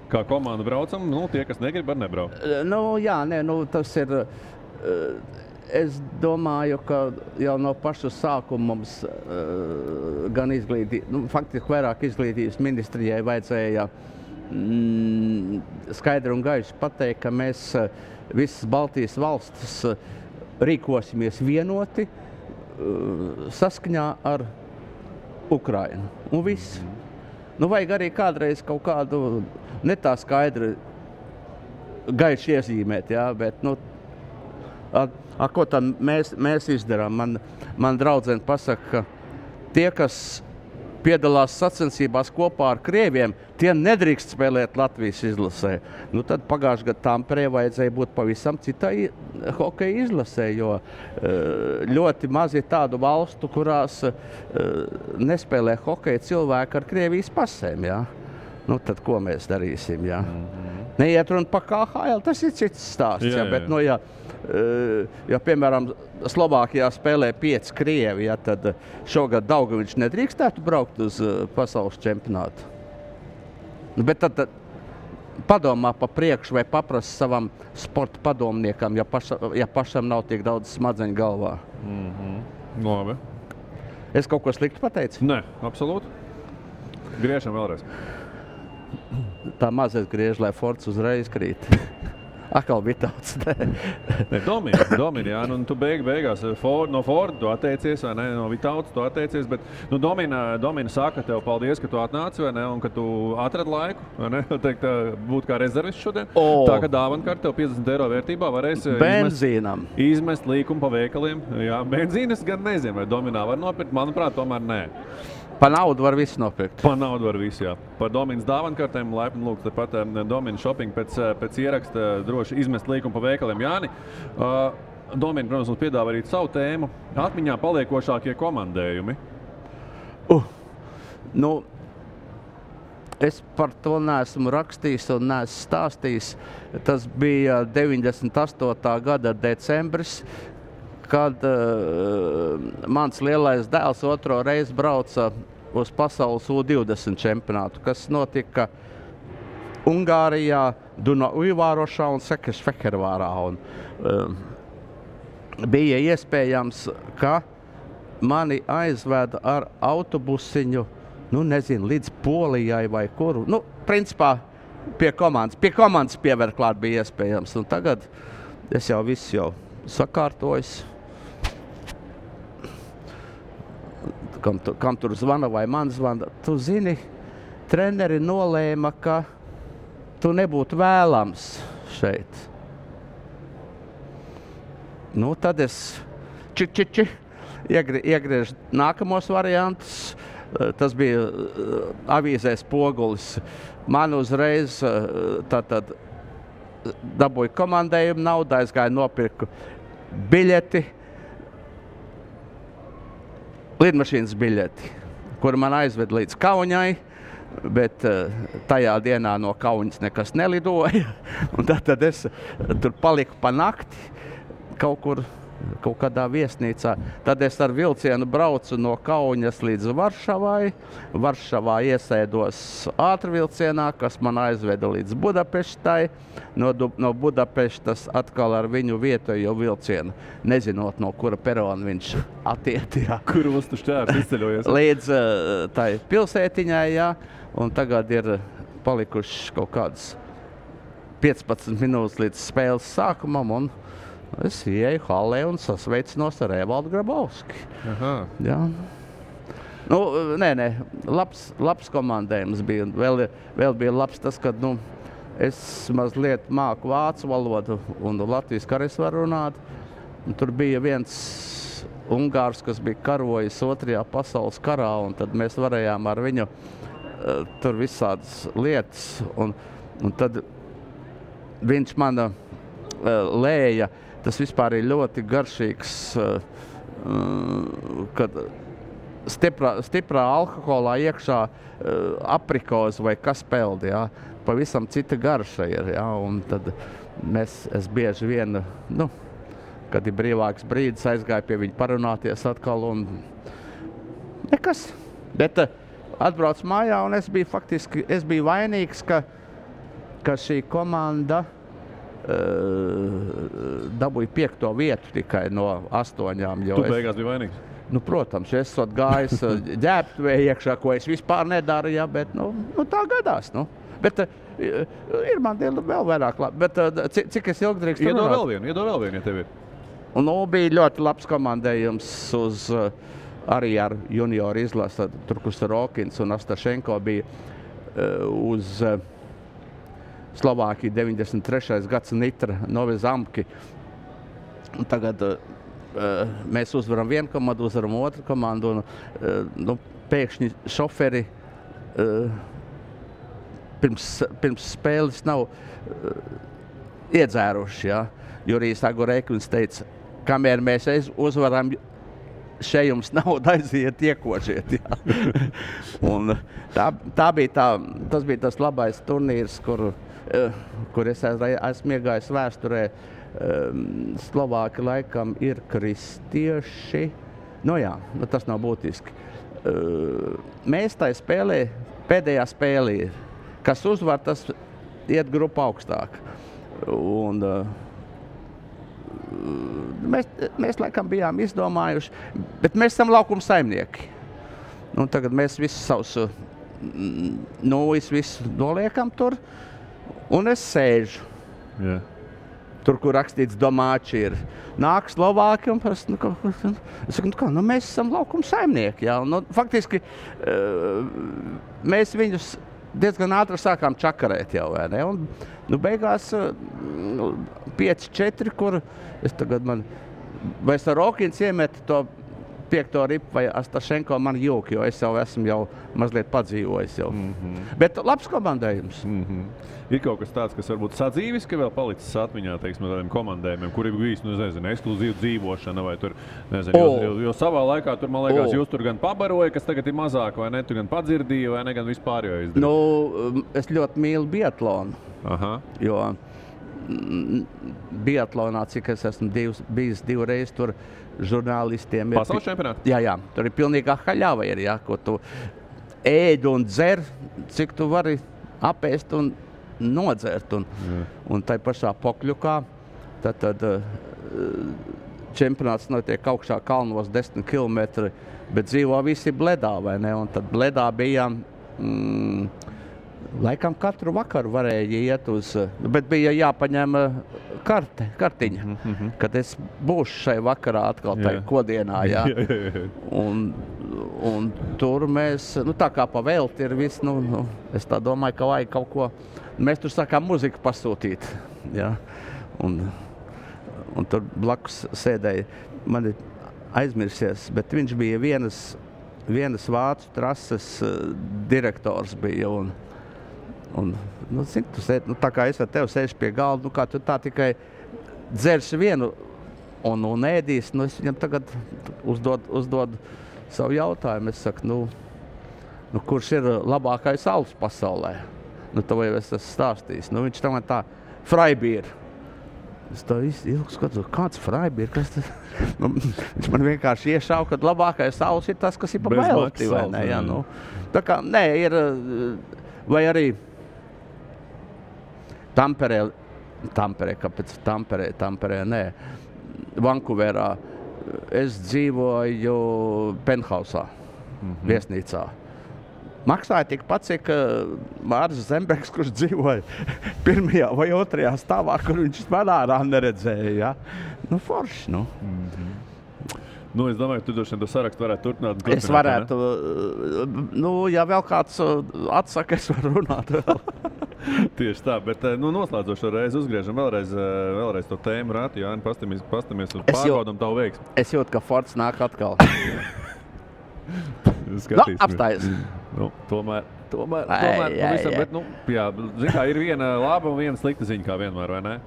Kā komanda braucam, tie, kas negrib, var nebraukt. Tas ir... Es domāju, ka jau no paša sākuma mums gan faktiski vairāk izglītības ministrijai vajadzēja skaidri un gaiši pateikt, ka mēs visas Baltijas valstis rīkosimies vienoti saskaņā ar Ukrainu. Un viss. Nu, vajag arī kādreiz kaut kādu ne tā skaidri gaiši iezīmēt, jā, bet, nu, ko tad mēs izdarām? Man draudzene pasaka, ka tie, kas piedalās sacensībās kopā ar krieviem, tie nedrīkst spēlēt Latvijas izlasē. Nu, tad pagājušajā gadā Tamperē vajadzēja būt pavisam citai hokeja izlasē, jo ļoti maz ir tādu valstu, kurās nespēlē hokeja cilvēki ar Krievijas pasēm. Jā. Nu, tad ko mēs darīsim? Jā? Neiet runa par KHL, tas ir cits stāsts. Jā, bet, nu, ja, piemēram, Slovākijā spēlē 5 krievi, ja, tad šogad Daugaviņš nedrīkstētu braukt uz pasaules čempionātu. Nu, bet tad padomā pa priekšu vai paprast savam sporta padomniekam, ja pašam nav tik daudz smadzeņu galvā. Labi. Es kaut ko sliktu pateicu? Nē, absolūti. Griežam vēlreiz. Tā mazais griež, lai Fords uzreiz krīt. Akal Vitauts. Domini, jā, nu tu beigās no Forda tu atteicies, vai ne, no Vitauts tu atteicies, bet, nu, Domina saka tev paldies, ka tu atnāci, vai ne, un ka tu atrad laiku, vai ne, teikt, būt kā rezervists šodien. Tā, ka dāvankart tev 50 eiro vērtībā varēs izmest līkumu pa veikaliem. Jā, benzīnas gan nezinu, vai Dominā var nopirkt, manuprāt, tomēr nē. Pa naudu var visu nopirkt. Pa naudu var visu, jā. Par Dominas dāvankartēm laipni lūgt, tāpat Domina shopping pēc ieraksta droši izmest līkumu pa veikaliem. Jāni, Domina, protams, mums piedāvā arī savu tēmu. Atmiņā paliekošākie komandējumi. Nu, es par to neesmu rakstījis un neesmu stāstījis. Tas bija 98. gada decembris, kad mans lielais dēls otro reizi brauca uz pasaules U20 čempionātu, kas notika Ungārijā, Dunaujvārošā un Sekešfehervārā. Bija iespējams, ka mani aizveda ar autobusiņu, nu nezinu, līdz Polijai vai kuru. Nu, principā pie komandas pievērt klāt bija iespējams. Un tagad es jau visu jau sakārtojis. Kam tur zvana vai man zvana. Tu zini, treneri nolēma, ka tu nebūtu vēlams šeit. Nu, tad es iegriežu nākamos variantus. Tas bija avīzē Spogulis. Man uzreiz tātad dabūju komandējumu naudu, aizgāju nopirku biļeti, lidmašīnas biļeti, kuru man aizved līdz Kaunai, bet tajā dienā no Kaunas nekas nelidoja. Un tad es tur paliku pa nakti kaut kādā viesnīcā. Tad es ar vilcienu braucu no Kaunas līdz Varšavai. Varšavā iesēdos ātrvilcienā, kas man aizveda līdz Budapeštai. No Budapeštas atkal ar viņu vietējo vilcienu, nezinot, no kura perona viņš attiet. Kur ostu šķērs izceļojies? Līdz tai pilsētiņai, jā. Un tagad ir palikuši kaut kādas 15 minūtes līdz spēles sākumam. Un es ieju halē un sasveicinos ar Evaldu Grabovski. Jā. Nu, nē, labs komandējums bija. Vēl bija labs tas, ka, nu, es mazliet māku vācu valodu un latviski arī varu runāt. Un tur bija viens ungārs, kas bija karojis 2. pasaules karā, un tad mēs varējām ar viņu tur visādas lietas. Un tad viņš man lēja. Tas vispār ir ļoti garšīgs, kad stiprā alkoholā iekšā aprikozi vai kas peldi, jā. Pavisam cita garša ir, jā. Un tad es bieži vien, nu, kad ir brīvāks brīdis, aizgāju pie viņa parunāties atkal un nekas. Bet atbraucu mājā un es biju vainīgs, ka šī komanda dabūju 5. vietu tikai no 8. Tu beigās biji vainīgs? Nu, protams, es esmu gājis ģērbtuvē iekšā, ko es vispār nedaru, ja, bet nu, tā gadās. Nu. Bet ir man vēl vairāk labi. Bet cik es ilgi drīkst runāt? Iedod vēl vienu, ja tev ir. Un bija ļoti labs komandējums uz arī ar junioru izlasi. Tur, kur Rokins un Astašenko bija uz Slovākiju 93. gads Nitra Novi Zamki. Un tagad mēs uzvaram vienu komandu, uzvaram otru komandu. Un, pēkšņi šoferi pirms spēles nav iedzēruši. Ja? Jurijs Agurēkins teica, kamēr mēs uzvaram, šeit jums nauda aiziet, iekožiet. Ja? Un tas bija tas labais turnīrs, kur es esmu iegājis vēsturē. Slovāki laikam ir kristieši. Tas nav būtiski. Mēs tai spēlē, pēdējā spēlē, kas uzvar, tas iet grupu augstāk. Un mēs laikam bijām izdomājuši, bet mēs esam laukuma saimnieki. Un tagad mēs visus savus visu noliekam tur, un es sēžu. Yeah. Tur, kur rakstīts domāči ir. Nāk Slovāki un es saku, mēs esam laukuma saimnieki. Ja? Un, faktiski mēs viņus diezgan ātri sākām čakarēt jau, vai ne? Un beigās 5-4, kur es tagad vai Rokins iemet to 5. ripu vai Astašenko man jūk, jo es jau esmu mazliet padzīvojis jau. Bet labs komandējums. Ir kaut kas tāds, kas varbūt sadzīvis, ka vēl palicis atmiņā, teiksim, no tādiem komandējumiem, kuri bija ekskluzīva dzīvošana vai tur, jo savā laikā tur, man liekas, jūs tur gan pabaroja, kas tagad ir mazāk, vai ne, tu gan padzirdīja, vai ne, gan vispār jau izdarīja. Es ļoti mīlu biatlonu, jo biatlonā, cik es esmu bijis 2 reizes tur žurnālistiem. Pasaules čempionāti? Jā, tur ir pilnīgā haļava, ko tu ēd un dzer, cik tu vari apēst un nodzert. Un tai pašā Pokļukā, tad čempionāts notiek augšā kalnos 10 kilometri, bet dzīvo visi Bledā, vai ne? Un tad Bledā bija, laikam katru vakaru varēja iet uz, bet bija jāpaņem kartiņa, kad es būšu šai vakarā atkal tai Kodienā, jā. Un tur mēs, tā kā pa velti ir viss, es tā domāju, ka vajag kaut ko, mēs tur sākām muziku pasūtīt, jā. Un tur blakus sēdēja, man ir aizmirsies, bet viņš bija vienas vācu trases direktors bija, zini, tu sēd, tā kā es ar tevi sēžu pie galda, kā tu tā tikai dzersi vienu un ēdīs, es viņam tagad uzdod savu jautājumu. Es saku, kurš ir labākais alus pasaulē? To jau es esmu stāstījis. Viņš tā Freibier. Es tā ilgi skatos, kāds Freibier, kas tas? Viņš man vienkārši iešauja, ka labākais alus ir tas, kas ir pa belti, vai ne? Jā, tā kā, ir, vai arī Tamperē, kāpēc Tamperē, nē. Vankūverā es dzīvoju penthausā, viesnīcā. Maksāja tikpat, cik Māris Zembergs, kurš dzīvoja 1. vai 2. stāvā, kur viņš manārā neredzēja. Ja? Forši, Es domāju, ka tu droši vien to sarakstu varētu turpināt. Es varētu, ja vēl kāds atsaka, es varu runāt vēl. Tieši tā, bet noslēdzošo reizi uzgriežam vēlreiz to tēmu rāti, Jāni, pastamies un pārbaudam tavu veiksmi. Es jūtu, ka Fords nāk atkal. Apstājies. Tomēr, pavisam, bet, zin kā, ir viena laba un viena slikta ziņa, kā vienmēr, vai ne?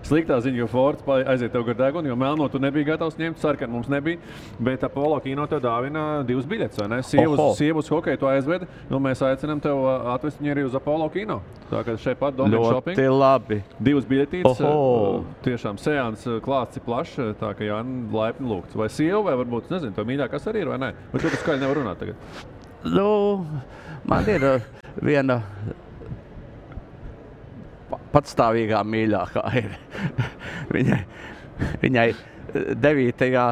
Sliktā ziņa, jo Fords aiziet tev gar degunu, jo melno tu nebija gatavs ņemt, sarkanu mums nebija, bet Apollo kino tev dāvina 2 biļetes, vai ne? Sievu uz hokeju tu aizvedi, mēs aicinām tev atvest viņu arī uz Apollo kino. Tā kā šeit pat Domin Shopping. Ļoti labi. 2 biļetītes, tiešām seans klāsts ir plašs, tā ka Jāni laipni lūgts. Vai sieva, vai varbūt, nezinu, tev mīļākās arī ir, vai ne? Vai tu skaļi nevar runāt tagad? Man ir viena patstāvīgā mīļākā ir. Viņai 9.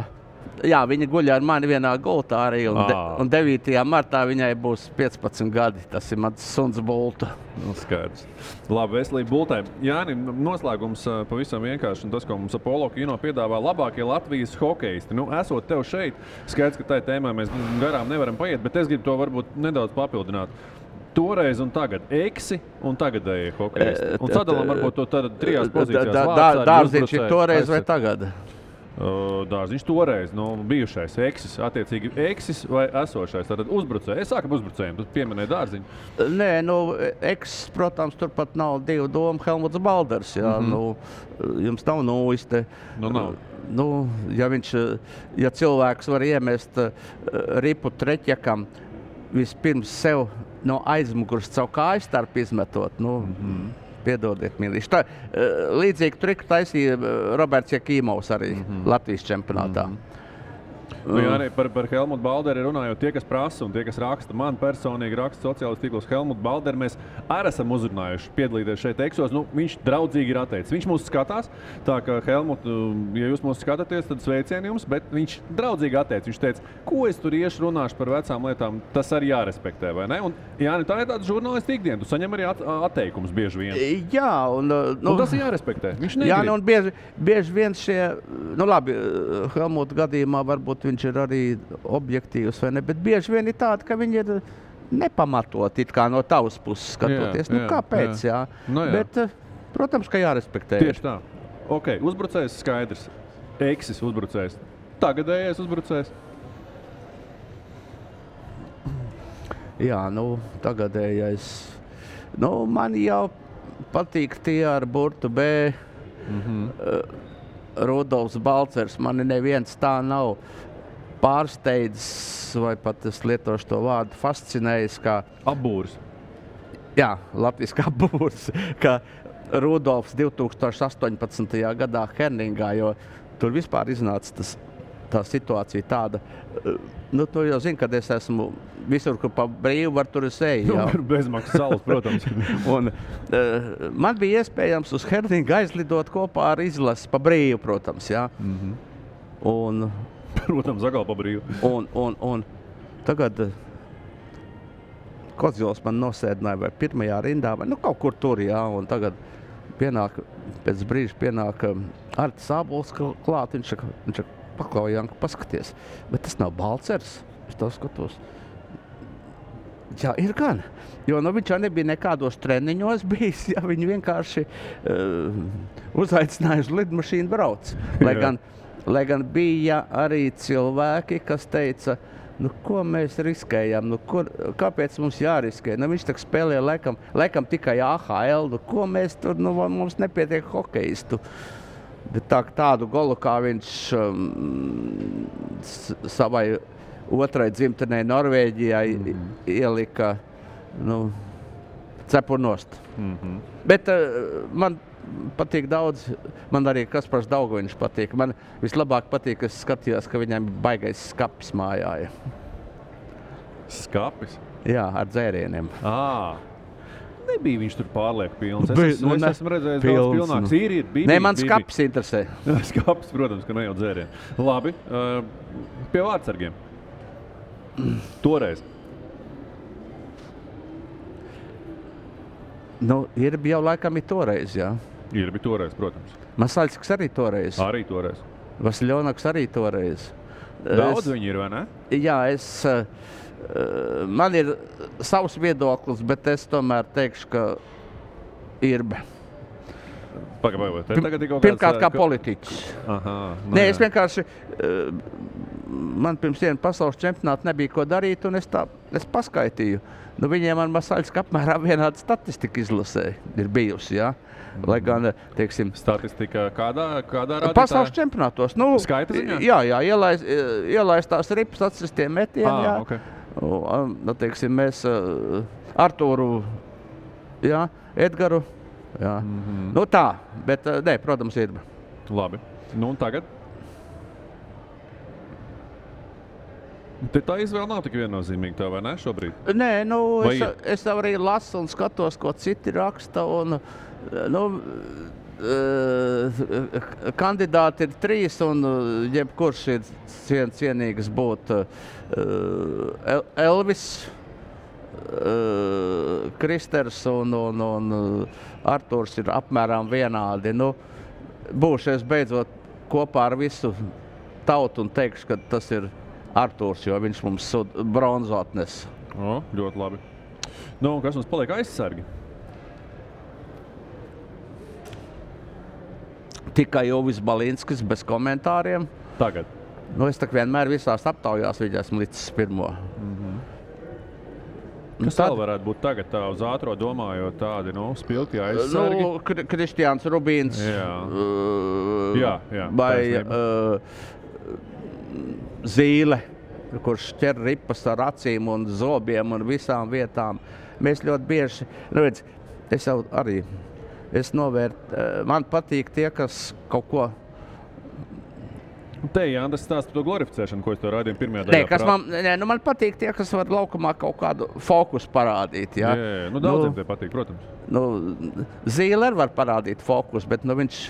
Jā, viņa guļ ar mani vienā gultā arī, un 9. martā viņai būs 15 gadi. Tas ir mans suns Bulta. Skaidrs. Labi, veselība Bultai. Jāni, noslēgums pavisam vienkārši, un tas, ko mums Apollo Kino piedāvā labākie Latvijas hokeisti. Esot tev šeit, skaidrs, ka tai tēmai mēs garām nevaram paiet, bet es gribu to varbūt nedaudz papildināt. Toreiz un tagad eksi un tagadēji hokeisti. Un sadalām varbūt to tad 3 pozīcijās. Dārziņš ir toreiz vai tagad? Dārziņš toreiz, bijušais eksis, attiecīgi eksis vai esošais, tātad uzbrucēji. Es sāku ar uzbrucējiem, tu pieminēji Dārziņu. Nē, eksis, protams, turpat nav 2 domu Helmuts Balders, jā, jums nav nuiste. Nav. Ja cilvēks var iemest ripu Treķekam, vispirms sev no aizmugurs savu kāju starp izmetot, piedodiet, mīlīši. Tā, līdzīgi triku taisīja Roberts Jakīmovs arī Latvijas čempionātā. Arī par Helmutu Balderi runājot, tie, kas prasa un tie, kas raksta, man personīgi raksta sociālajos tīklos Helmutu Balderi, mēs arī esam uzrunājuši piedalīties šeit eksos. Viņš draudzīgi ir atteicis. Viņš mūs skatās, tā ka Helmut, ja jūs mūs skatāties, tad sveicieni jums, bet viņš draudzīgi atteicis. Viņš teica, ko es tur iešu runāšu par vecām lietām, tas arī jārespektē, vai ne? Un, Jāni, tā ir tāda žurnālisti ikdiena, tu saņem arī atteikumus bieži vien. Jā, un tas ir jārespektē. Viņš negrib. Jā, un bieži vien šie, labi, Helmuta gadījumā varbūt viņš ir arī objektīvs, vai ne, bet bieži vien ir tāda, ka viņi ir nepamatot it kā no tavas puses skatoties. Kāpēc, jā? Bet, protams, ka jārespektē. Tieši tā. Ok, uzbrucējs skaidrs. Eksis uzbrucējs. Tagadējais uzbrucējs. Jā, tagadējais. Man jau patīk tie ar burtu B. Rudolfs Balcers. Mani neviens tā nav pārsteidzis, vai pat es lietošu to vārdu, fascinējis, kā apbūrs. Jā, latviski apbūrs, kā Rudolfs 2018. gadā Herningā, jo tur vispār iznāca tā situācija tāda. Tu jau zini, kad es esmu visur, kur pa brīvu var tur es eju. Bezmaksas salas, protams. Un man bija iespējams uz Herningu aizlidot kopā ar izlasi pa brīvu, protams, jā. Un protams, agal pa brīvu. Un tagad Kozjols man nosēdināja vai pirmajā rindā, vai kaut kur tur, jā. Un tagad pēc brīža pienāk Artis Ābols klāt, viņš paklau, Janka, paskaties. Bet tas nav Balcers, es to skatos. Jā, ir gan. Jo viņš jau nebija nekādos treniņos bijis, ja viņi vienkārši uzaicināja uz lidmašīnu brauc. Lai gan bija arī cilvēki, kas teica, ko mēs riskējam, kāpēc mums jāriskē? Viņš tak spēlē laikam tikai AHL, ko mēs tur, mums nepietiek hokeistu. Bet tādu golu, kā viņš savai otrai dzimtenei Norvēģijai ielika, cepur nost. Bet man patīk daudz, man arī Kaspars Daugaviņš patīk. Man vislabāk patīk, ka es skatījos, ka viņam baigais skapis mājā. Skapis? Jā, ar dzērieniem. Nebija viņš tur pārlieku pilns. Es esmu redzējis daudz pilnāks. Ir. Nē, man skapis interesē. Skapis, protams, ka ne jau dzērieni. Labi, pie vārdsargiem. Toreiz. Irbi jau laikam ir toreiz, jā. Irbi toreiz, protams. Masaļskis arī toreiz. Arī toreiz. Vasiljonaks arī toreiz. Daudz viņi ir, vai ne? Jā, man ir savs viedoklis, bet es tomēr teikšu, ka Irbe. Pirmkārt kā politiķis. Nē, es vienkārši, man pirms viena pasaules čempionāta nebija ko darīt, un es paskaitīju. Viņiem ar Masaļsku apmēram vienāda statistika izlasē ir bijusi, jā. Lai gan, teiksim... Statistika kādā rādītājā? Pasaules čempionātos. Skaita ziņā? Jā, ielaistās ripas atsistiem metieni, jā. Okay. Teiksim, mēs Artūru, jā, Edgaru, jā. Tā, bet, nē, protams, ir. Labi. Un tagad? Tā izvēle nav tik viennozīmīga tev, vai ne, šobrīd? Nē, es arī lasu un skatos, ko citi raksta, un, kandidāti ir 3, un jebkurš ir cienīgs būt Elvis, Kristers un Arturs ir apmēram vienādi. Nu, būšu es beidzot kopā ar visu tautu un teikšu, ka tas ir Arturs, jo viņš mums bronzu atnes. O, ļoti labi. Nu, kas mums paliek aizsargi? Tikai Jovis Balinskis bez komentāriem. Tagad. Nu, es tak vienmēr visās aptaujās viņu esmu licis pirmo. Kas vēl varētu būt tagad tā uz ātro domājot tādi, spilgti aizsargi? Nu, Kristiāns Rubīns. Jā, vai Zīle, kurš ķer ripas ar acīm un zobiem un visām vietām. Mēs ļoti bieži, es jau arī, man patīk tie, kas kaut ko... Te, Jānis, stāst par to glorificēšanu, ko es to raidīju pirmajā daļā. Man patīk tie, kas var laukumā kaut kādu fokusu parādīt. Jā, daudziem tie patīk, protams. Zīle var parādīt fokusu, bet viņš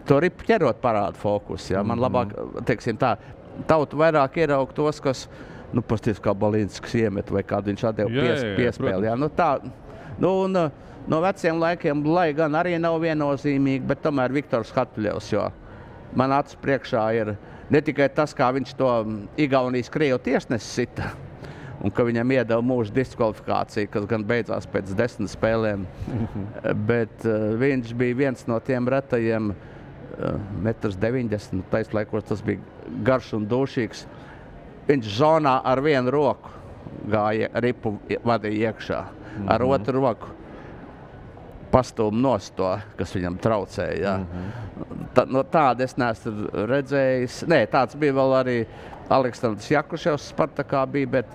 to ripu ķerot parāda fokusu. Jā. Man labāk, teiksim tā, tautu vairāk ieraug tos, kas, pasties kā Balinskis iemet vai kādu viņš atdeva piespēli. Jā. No veciem laikiem, lai gan arī nav viennozīmīgi, bet tomēr Viktors Hatuļevs, jo man acis priekšā ir ne tikai tas, kā viņš to Igaunijas Krievu tiesnesi sita, un ka viņam iedeva mūža diskvalifikāciju, kas gan beidzās pēc 10 spēlēm, bet viņš bija viens no tiem retajiem 1,90 m, taislaikos tas bija garš un dūšīgs. Viņš zonā ar vienu roku gāja ripu vadīja iekšā, ar otru roku pastūm nost to, kas viņam traucēja. Tādu es neesmu redzējis. Nē, tāds bija vēl arī Aleksandrs Jakuševs Spartakā bija, bet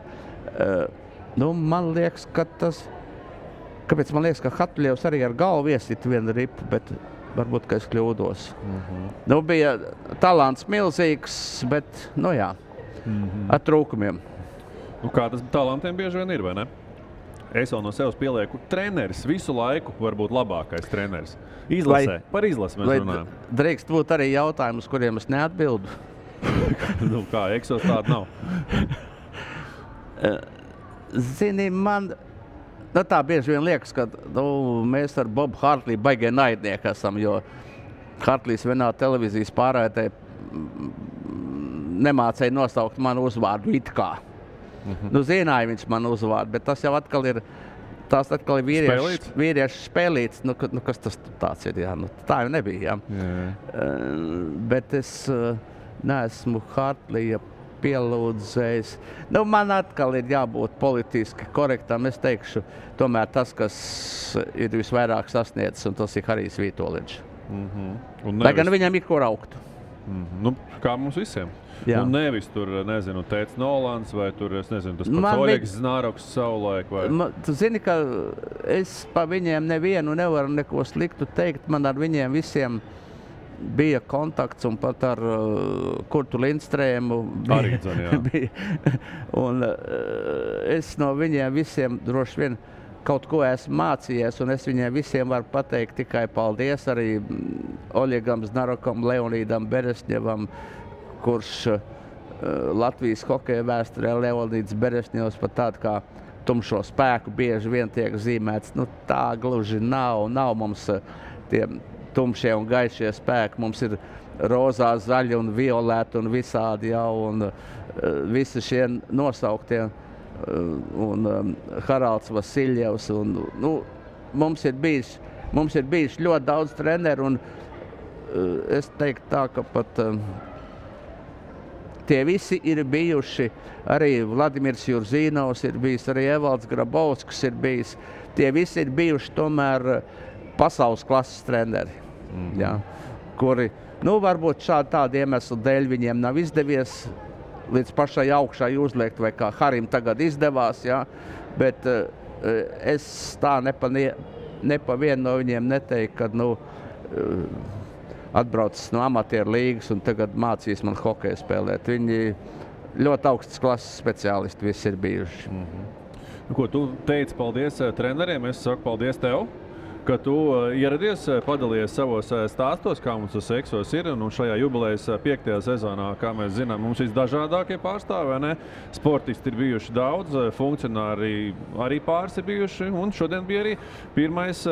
man liekas, ka kāpēc man liekas, ka Hatuļevs arī ar galvu iesit vienu ripu, bet varbūt, ka es kļūdos. Bija talants milzīgs, bet, ar trūkumiem. Kā tas talantiem bieži vien ir, vai ne? Es vēl no sevis pielieku treneris visu laiku var būt labākais treneris. Izlasē. Par izlasi mēs runājam. Drīkst būt arī jautājumi, uz kuriem es neatbildu? Kā, Eksos tāda nav? Zini, man... tā bieži vien liekas, ka mēs ar Bobu Hartliju baigie naidnieki esam, jo Hartlijs vienā televīzijas pārraidē nemācēja nosaukt manu uzvārdu it kā. Zināja viņš manu uzvārdu, bet tas jau atkal ir vīriešu spēlīts. Kas tas tāds ir? Jā? Tā jau nebija. Jā. Bet es neesmu Hartlija pielūdzējis. Man atkal ir jābūt politiski korektam. Es teikšu, tomēr tas, kas ir visvairāk sasniedzis, un tas ir Harijs Vītoliņš. Lai gan viņam ir kur augt. Kā mums visiem. Jā. Un nevis tur, Tēts Nolans vai tur, tas pats Oļegs Znāroks savulaik vai... Tu zini, ka es pa viņiem nevienu nevaru neko sliktu teikt. Man ar viņiem visiem bija kontakts un pat ar Kurtu Lindstrēmu bija. Un es no viņiem visiem droši vien kaut ko esmu mācījies, un es viņiem visiem varu pateikt tikai paldies arī Oļegam Znārokam, Leonīdam Beresņevam, kurš Latvijas hokeja vēsturē Leonīds Beresņevs pat tādu kā tumšo spēku bieži vien tiek zīmēts. Tā gluži nav mums tie tumšie un gaišie spēki. Mums ir rozā, zaļi un violēti un visādi jau, un visi šie nosauktie, un Haralds Vasiljevs. Mums ir bijis ļoti daudz treneru, un es teiktu tā, ka pat tie visi ir bijuši, arī Vladimirs Jurzīnovs ir bijis, arī Evalds Grabovskis ir bijis. Tie visi ir bijuši tomēr pasaules klases treneri, kuri, varbūt tādu iemeslu dēļ viņiem nav izdevies līdz pašai augšai uzliekt, vai kā Harim tagad izdevās, bet es tā nepa vienu no viņiem neteiktu, kad, atbraucis no amatieru līgas un tagad mācīs man hokeju spēlēt. Viņi ļoti augstas klases speciālisti visi ir bijuši. Ko tu teici paldies treneriem, es saku paldies tev. ka tu ieradies, padalies savos stāstos, kā mums tas Eksos ir. Un šajā jubilejas 5. sezonā, kā mēs zinām, mums visdažādākie pārstāvi, ne? Sportisti ir bijuši daudz, funkcionāri arī pāris ir bijuši. Un šodien bija arī pirmais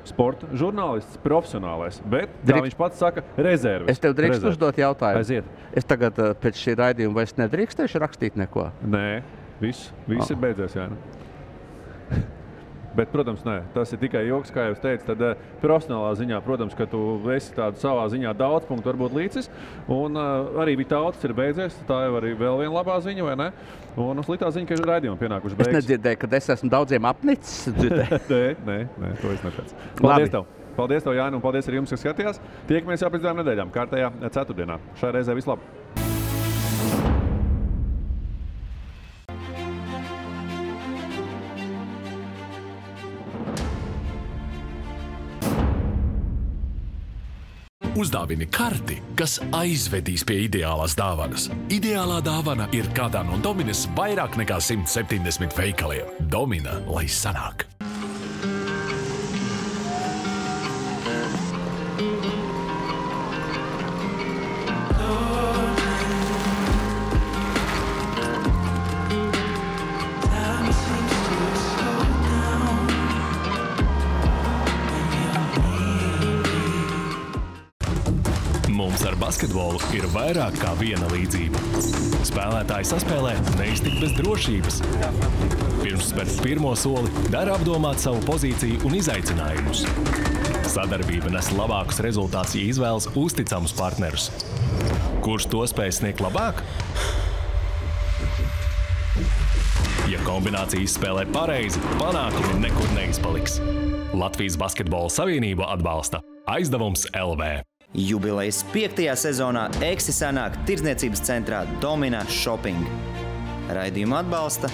sporta žurnālists, profesionālais. Bet, kā viņš pats saka, rezerves. Es tev drīkstu uzdot jautājumu. Aiziet. Es tagad pēc šī raidījuma vairs nedrīkstēšu rakstīt neko? Nē, viss ir beidzies, jā. Bet, protams, nē, tas ir tikai joks, kā jau es teicu. Tad profesionālā ziņā, protams, ka tu esi tādu savā ziņā daudz punktu varbūt līdzis. Un arī Vitautis ir beidzies. Tā jau arī vēl viena labā ziņa, vai ne? Un sliktā ziņa, ka ir raidījumi pienākuši beigas. Es nedzirdēju, ka es esmu daudziem apnicis. Nē, to es neteicu. Paldies tev! Paldies tev, Jāni, un paldies arī jums, kas skatījās. Tiekamies jau pēc 2 nedēļām, kārtējā ceturtdienā. Šai reizē vislabāk! Uzdāvini karti, kas aizvedīs pie ideālās dāvanas. Ideālā dāvana ir kādā no Dominas vairāk nekā 170 veikaliem. Domina, lai sanāk! Mums ar basketbolu ir vairāk kā viena līdzība. Spēlētāji saspēlē neiztikt bez drošības. Pirms spērt pirmo soli, dara apdomāt savu pozīciju un izaicinājumus. Sadarbība nes labākus rezultātus, ja izvēlas uzticamus partnerus. Kurš to spēj sniegt labāk? Ja kombinācija izspēlē pareizi, panākumi nekur neizpaliks. Latvijas Basketbola Savienība atbalsta Aizdevums LV. Jubilejas 5. sezonā Eksi sanāk tirdzniecības centrā Domina Shopping. Raidījumu atbalsta